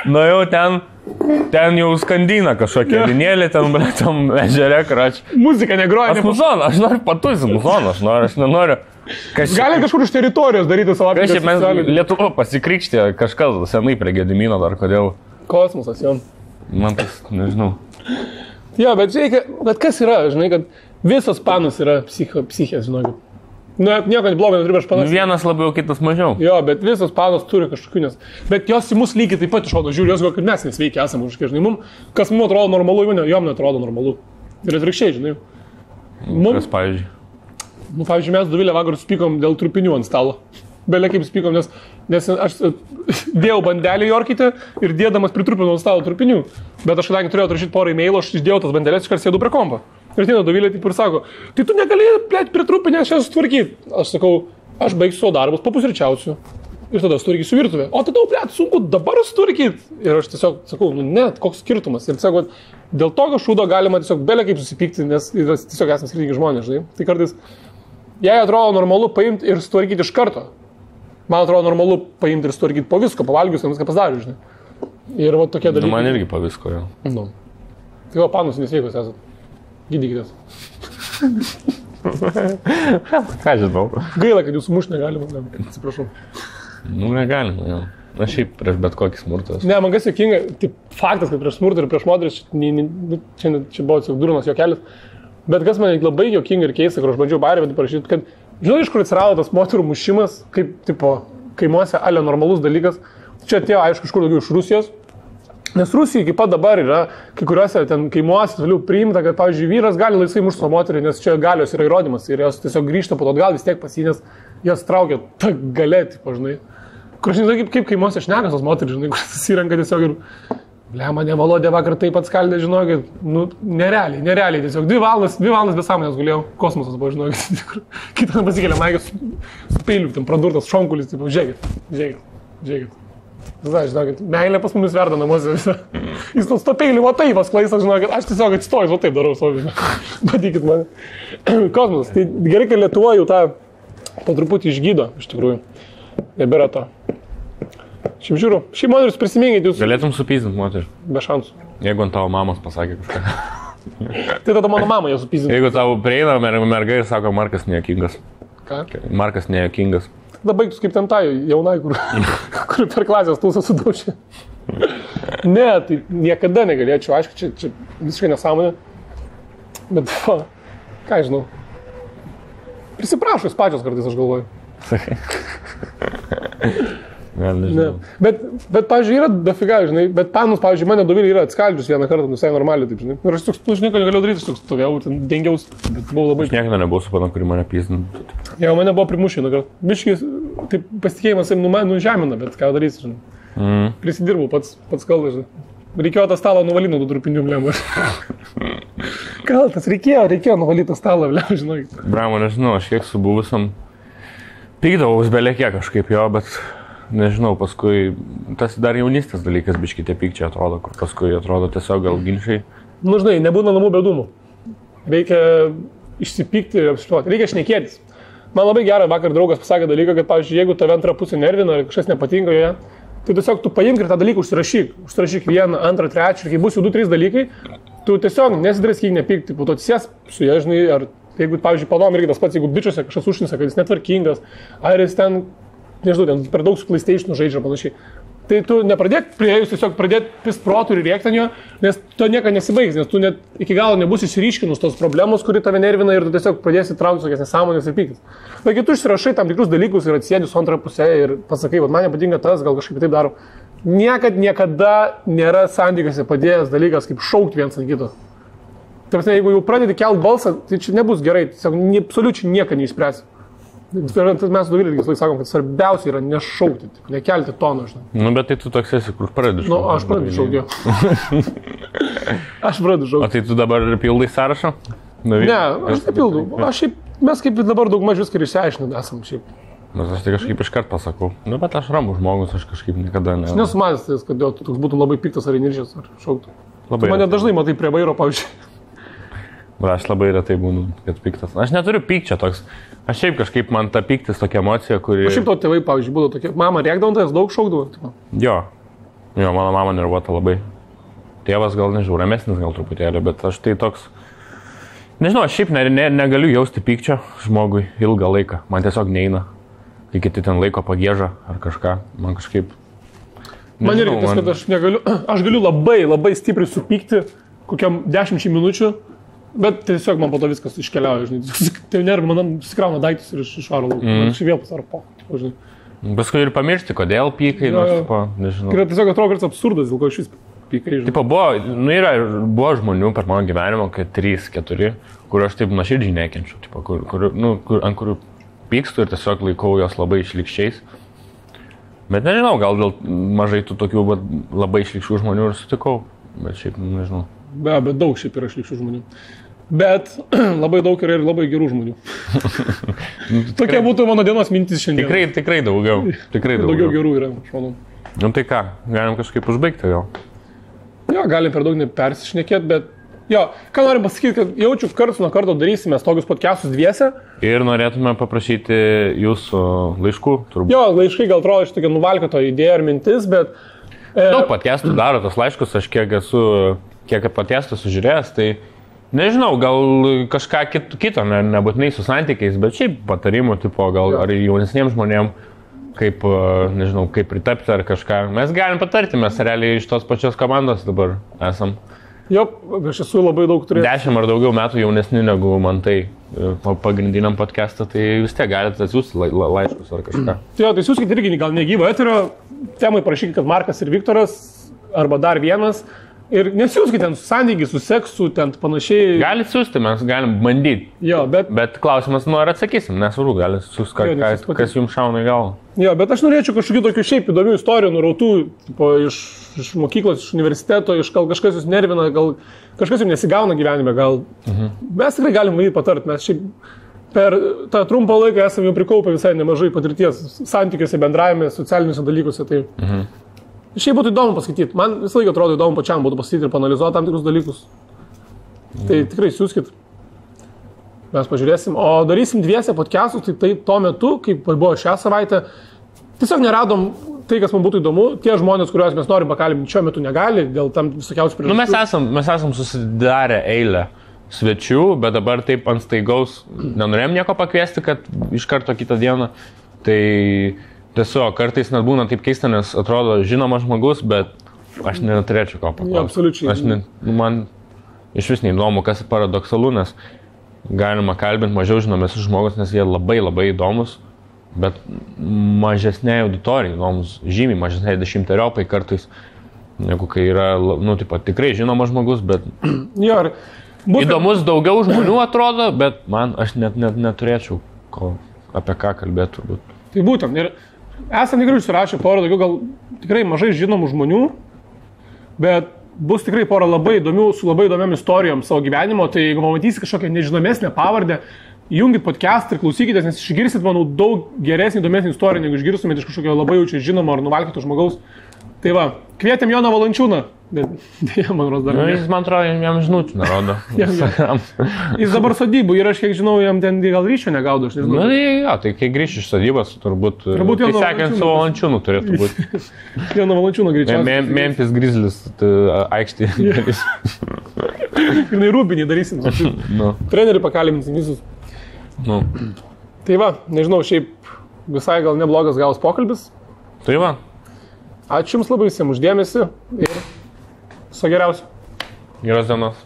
nuėjau ten jau skandina kažkokia vinėlė, ten, ble, tam ežere, krač. Muzika negroja. Aš noriu patusit, aš nenoriu. Gali kažkur iš teritorijos daryti savo aplinką. Kažkaip mes Lietuva pasikrikštė kažkas senai prie Gedimino dar kodėl. Kosmosas, jo. Man tas, nežinau. Jo, bet reikia, bet kas yra, žinai, kad visos panos yra psichės, žinai. Nu, nieko blogo neturi prieš panas. Vienas labiau, kitas mažiau. Jo, bet visos panos turi kažkokių, bet jos į mus lygiai taip pat išrodo, žiūri, jos gal, kad mes nesveikia esame kažkiek, žinai, kas mums atrodo normalu, jom neatrodo normalu. Ir atvirkščiai, žinai. Kas, pavyzdžiui? Nu, pavyzdžiui, mes Dovilė vakar supykom dėl trupinių ant stalo. Belė kaip supykom, nes aš dėjau bandelį Jorkite ir dėdamas pritrupinau ant stalo trupinių. Bet aš kadangi turėjau atrašyti porą e-mailų, aš išdėjau tas bandelės, iškart sėdu prie kompo. Ir ateina Dovilė taip ir sako, tai tu negali, plėt, pritrupinę šią sutvarkyti. Aš sakau, aš baigsiu savo darbus, papusryčiausiu. Ir tada sutvarkysiu virtuvę. O tada, plėt, sunku dabar sutvarkyti. Ir aš tiesiog sakau, nu net, koks skirtumas. Ir sakau, dėl tokio šūdo galima tiesiog belė kaip susipykti, nes tiesiog esame skirtingi žmonės, žinai. Tai kartais jei atrodo normalu paimti ir sutvarkyti iš karto. Man atrodo normalu paimti ir sutvarkyti po visko, pavalgius, viską pasidariu, žinai. Ir va tokie dalykai. Nu, man irgi po visko, jo. Nu. Tai va, panus nesveikos esat. Gydykitės. Ką žinau. Gaila, kad jūsų mušti negalima. Atsiprašau. Nu, negalima, jo. Aš šiaip prieš bet kokį smurtą. Ne, man kas juokinga, tai faktas, kad prieš smurtą ir prieš moteris, čia buvo tiesiog durnas juokelis. Bet kas man labai juokinga ir keista, kur aš bandžiau barį parašyti, kad žinai, iš kur atsirado tas moterų mušimas, kaip, tipo, kaimuose ale normalus dalykas. Čia atėjo, aišku, iš kur daugiau iš Rusijos. Nes Rusija iki pat dabar yra, kai kuriuose ten kaimuose vėliau priimta, kad, pavyzdžiui, vyras gali laisvai mušti savo moterį, nes čia galios yra įrodymas ir jos tiesiog grįžta po to atgal vis tiek pasinės, jos traukia tą galę, tipo, žinai. Kur aš nežinau, kaip kaimuose šnekas tos moterį, žinai, kur susirenka tiesiog ir... Ble, mane Valodė vakar taip atskaldė, žinokit, nu, nerealiai, tiesiog 2 valandas be sąmonės gulėjau, kosmosas buvo, žinokit, kitą pasikėlė maikės su peiliu, ten pradurtas šonkulis, tipo, žiūrėkit. Žinokit, meilė pas mumis verda namuose visą. Jis tos to peiliu, va taip pasklaisas, žinokit, aš tiesiog atstojus, va taip darau savo, matykit mane. Kosmosas, tai gerai, kad Lietuva jau tą po truputį išgydo, iš tikrųjų, nebėra to. Šiaip žiūriu, šiaip moteris prisiminkit jūs. Galėtum supyzdinti moterį. Be šansų. Jeigu ant tavo mamos pasakė kažką. Tai tada mano mama ją supyzdinti. Jeigu tavo prieina merga ir sako, Markas nejuokingas. Ką? Markas nejuokingas. Tada baigtus kaip ten tai jaunai, kur per klasės tūsą sudaužė. Ne, tai niekada negalėčiau, aišku, čia visiškai nesąmonė. Bet, ką žinau. Prisiprašus pačios kartais, aš galvoju. Sakai. Ne. Bet pavyzdžiui, yra dafiga, žinai, bet panus, pavyzdžiui, mane Dovilė yra atskaldžius vieną kartą, visai normaliai, taip, žinai. Ir aš toks, tu nieko negalėjau daryti, aš toks stovėjau, ten dengiaus, bet buvau labai... Aš niekada nebuvau su pana, kuri mane pyzdintų. Jo, mane buvo primušę, biškis, taip pasitikėjimas nužemina, bet ką darysi, žinai. Prisidirbau pats kalbas, žinai. Reikėjo tą stalą nuvalyti nuo tų trupinių, blem. Kaltas, reikėjo nuvalyti tą stalą, blem, žinai. Bramo, nežinau, aš kiek su buvusiam pykdavaus belė kiek kažkaip jo, bet nežinau, paskui tas dar jaunystės dalykas biški tie pykčiai atrodo, kur paskui atrodo tiesiog gal ginčiai. Nu, žinai, nebūna namų bedumų. Reikia išsipykti, apsištuoti, reikia šnekėtis. Man labai gerai vakar draugas pasakė dalyką, kad, pavyzdžiui, jeigu tave antrą pusę nervina ir kažkas nepatinka joje, tai tiesiog tu paimk ir tą dalyką užsirašyk vieną, antrą, trečią, ir kai bus jau 2-3 dalykai, tu tiesiog nesidraskyk, nepykti, po to atsisės su jie, žinai, ar jeigu, pavyzdžiui, panom irgi tas pats, jeigu bičiuose kažkas užnisa, kad jis netvarkingas, ar jis ten, nežinau, ten per daug su PlayStation žaidžia panašiai. Tai tu nepradėk prieėjus tiesiog pradėti pist protų ir rėkti ant jo, nes to nieko nesibaigs, nes tu net iki galo nebus išryškinus tos problemos, kuri tave nervina ir tu tiesiog pradėsi traukti tokias nesąmonės ir pyktis. Bet kai tu išsirašai tam tikrus dalykus ir atsėdi su antrą pusę ir pasakai, kad man nepatinka tas, gal kažkaip taip daro, niekada nėra santykiuose padėjęs dalykas kaip šaukti viens ant kito. Tai jeigu jau pradedi kelt balsą, tai čia nebus gerai, tiesiog absoliučiai nieko neišspręsi. Mes su Dovilė visai sakom, kad svarbiausia yra nešaukti, nekelti tono, žinai. Nu, bet tai tu toks esi, kur pradedi šaukti. Nu, aš pradedu šaukti. Aš pradedu šaukti. O tai tu dabar pildai sąrašą? Ne, aš nepildau. Mes kaip dabar daug maž viską išsiaiškinam esam šiaip. Nes aš tai kažkaip iškart pasakau. Nu, bet aš ramus žmogus, aš kažkaip niekada ne. Aš nesumanęs, kad tu toks būtum labai piktas ar įniršęs ar šauktų. Tu mane dažnai matai prie vairo, pavyzdžiui. Aš labai retai būnu, kad piktas. Aš neturiu pykčio toks. Aš šiaip kažkaip man ta pyktis tokia emocija, kuri... O šiaip to tėvai, pavyzdžiui, būdavo tokie. Mama rėkdavo, tai daug šaukdavo. Jo, mano mama nervuota labai. Tėvas gal, nežinau, ramesnis gal truputėlį, bet aš tai toks... Nežinau, aš šiaip negaliu jausti pykčio žmogui ilgą laiką. Man tiesiog neina. Kai kiti ten laiko pagėža ar kažką. Man kažkaip... Nežinau, man irgi tas, kad aš negaliu... Aš galiu labai stipriai supykti kokiam 10 minučių. Bet tiesiog man po to viskas iškeliauja, žinai. Tai nervina, man susikrauna daiktus ir išvaro lauk. Aš vėl pasaro po, žinai. Paskui ir pamiršti, kodėl pykai, nežinau. Tai tiesiog atrodo, kad absurdas, dėl ko iš vis pykai, žinai. Tipo, buvo žmonių per mano gyvenimą, kad 3-4, kur aš taip nuoširdžiai nekenčiu, tipo, ant kurių pykstu ir tiesiog laikau jos labai išlikščiais. Bet nežinau, gal dėl mažai tų tokių labai išlikščių žmonių ir sutikau, bet šiaip nežinau. Bet daug šiaip yra išlikščių žmonių. Bet labai daug yra ir labai gerų žmonių. Tokia būtų mano dienos mintis šiandien. Tikrai daugiau. Daugiau gerų yra, aš manau. Nu tai ką, galim kažkaip užbaigti gal? Jo, galim per daug nepersišnekėti, bet jo, ką norim pasakyti, kad jaučiu, karts nuo karto darysime tokius podcastus dviese. Ir norėtume paprašyti jūsų laiškų, turbūt. Jo, laiškai gal atrodo iš tokia nuvalkioto idėja ar mintis, bet... Daug podcastų daro tos laiškus, aš kiek podcastų sužiūrėjęs, tai nežinau, gal kažką kito, nebūtinai su santykiais, bet šiaip patarimų, tipo, gal ar jaunesniems žmonėms, kaip, nežinau, kaip pritapti ar kažką. Mes galim patarti, mes realiai iš tos pačios komandos dabar esam. Jo, aš esu labai daug turėjęs. 10 ar daugiau metų jaunesni negu man tai pagrindiniam podcastą, tai vis tiek galite atsiųsti laiškus ar kažką. Jo, tai siūskite irgi gal negyvo eterio, temai parašykite, kad Markas ir Viktoras, arba dar vienas. Ir nesiūskite ten su santykiai, su seksu, ten panašiai. Galit siūsti, mes galim bandyti. Jo, bet klausimas, nu ar atsakysim, nesvarbu, galit siūsti, kas jums šauna į galvą. Jo, bet aš norėčiau kažkokių tokių šiaip įdomių istorijų, nurautų, tipo, iš mokyklos, iš universiteto, iš gal kažkas jūs nervina, gal kažkas jums nesigauna gyvenime, gal. Mes tikrai galim bandyti patarti, mes šiaip per tą trumpą laiką esame jau prikaupę visai nemažai patirties santykiuose, bendravime, socialiniuose dalykuose. Tai... Šiaip būtų įdomu paskaityti. Man visą laiką atrodo įdomu pačiam būtų paskaityti ir panalizuoti tam tikrus dalykus. Tai tikrai siūskit. Mes pažiūrėsim. O darysim dviese podcastus, tai tuo metu, kaip buvo šią savaitę, tiesiog neradom tai, kas man būtų įdomu. Tie žmonės, kuriuos mes norim pakalbinti, šiuo metu negali, dėl tam visokiausių priežasčių. Mes esam susidarę eilę svečių, bet dabar taip ant staigaus nenorėjom nieko pakviesti, kad iš karto kitą dieną. Tai... Tiesiog, kartais net būna taip keista, nes atrodo žinomas žmogus, bet aš neturėčiau ko paklausti. Ja, absoliučiai. Man iš vis neįdomu, kas paradoksalu, nes galima kalbinti mažiau žinomės žmogus, nes jie labai įdomus, bet mažesnė auditorija įdomus, žymiai mažesnė 10-eriopai kartais, negu kai yra, tikrai žinomas žmogus, bet ja, įdomus daugiau žmonių atrodo, bet aš net neturėčiau apie ką kalbėti turbūt. Tai būtent, ir esam tikrai užsirašę porą daugiau gal tikrai mažai žinomų žmonių, bet bus tikrai porą labai įdomių, su labai įdomiam istorijom savo gyvenimo, tai jeigu pamatysi kažkokią nežinomesnę pavardę, Įjungit podcastą ir klausykitės, nes išgirsit, manau, daug geresnį, įdomesnį istoriją, negu išgirstumėte iš kažkokio labai jaučiai žinomo ar nuvalkyto žmogaus. Tai va, kvietėm Joną Valančiūną, bet dėja, man rodos, dar ne. Jis, man atrodo, jam žinučių nerodo. Jis dabar sodybų ir aš, kiek žinau, jam ten gal ryšio negaudo, aš nežinau. Na, jo, tai kai grįš iš sodybos, turbūt tai sekant su Valančiūnu turėtų būti. Joną Valančiūną greičiausiai. Memphis Grizzlies aikštį. Ir Rūbinį darysim. Trenerių pakalbinsim visus. Tai va, nežinau, šiaip visai gal neblogas gavus pokalbis. Tai va. Ačiū Jums labai visiems už dėmesį ir viso geriausio. Geros dienos.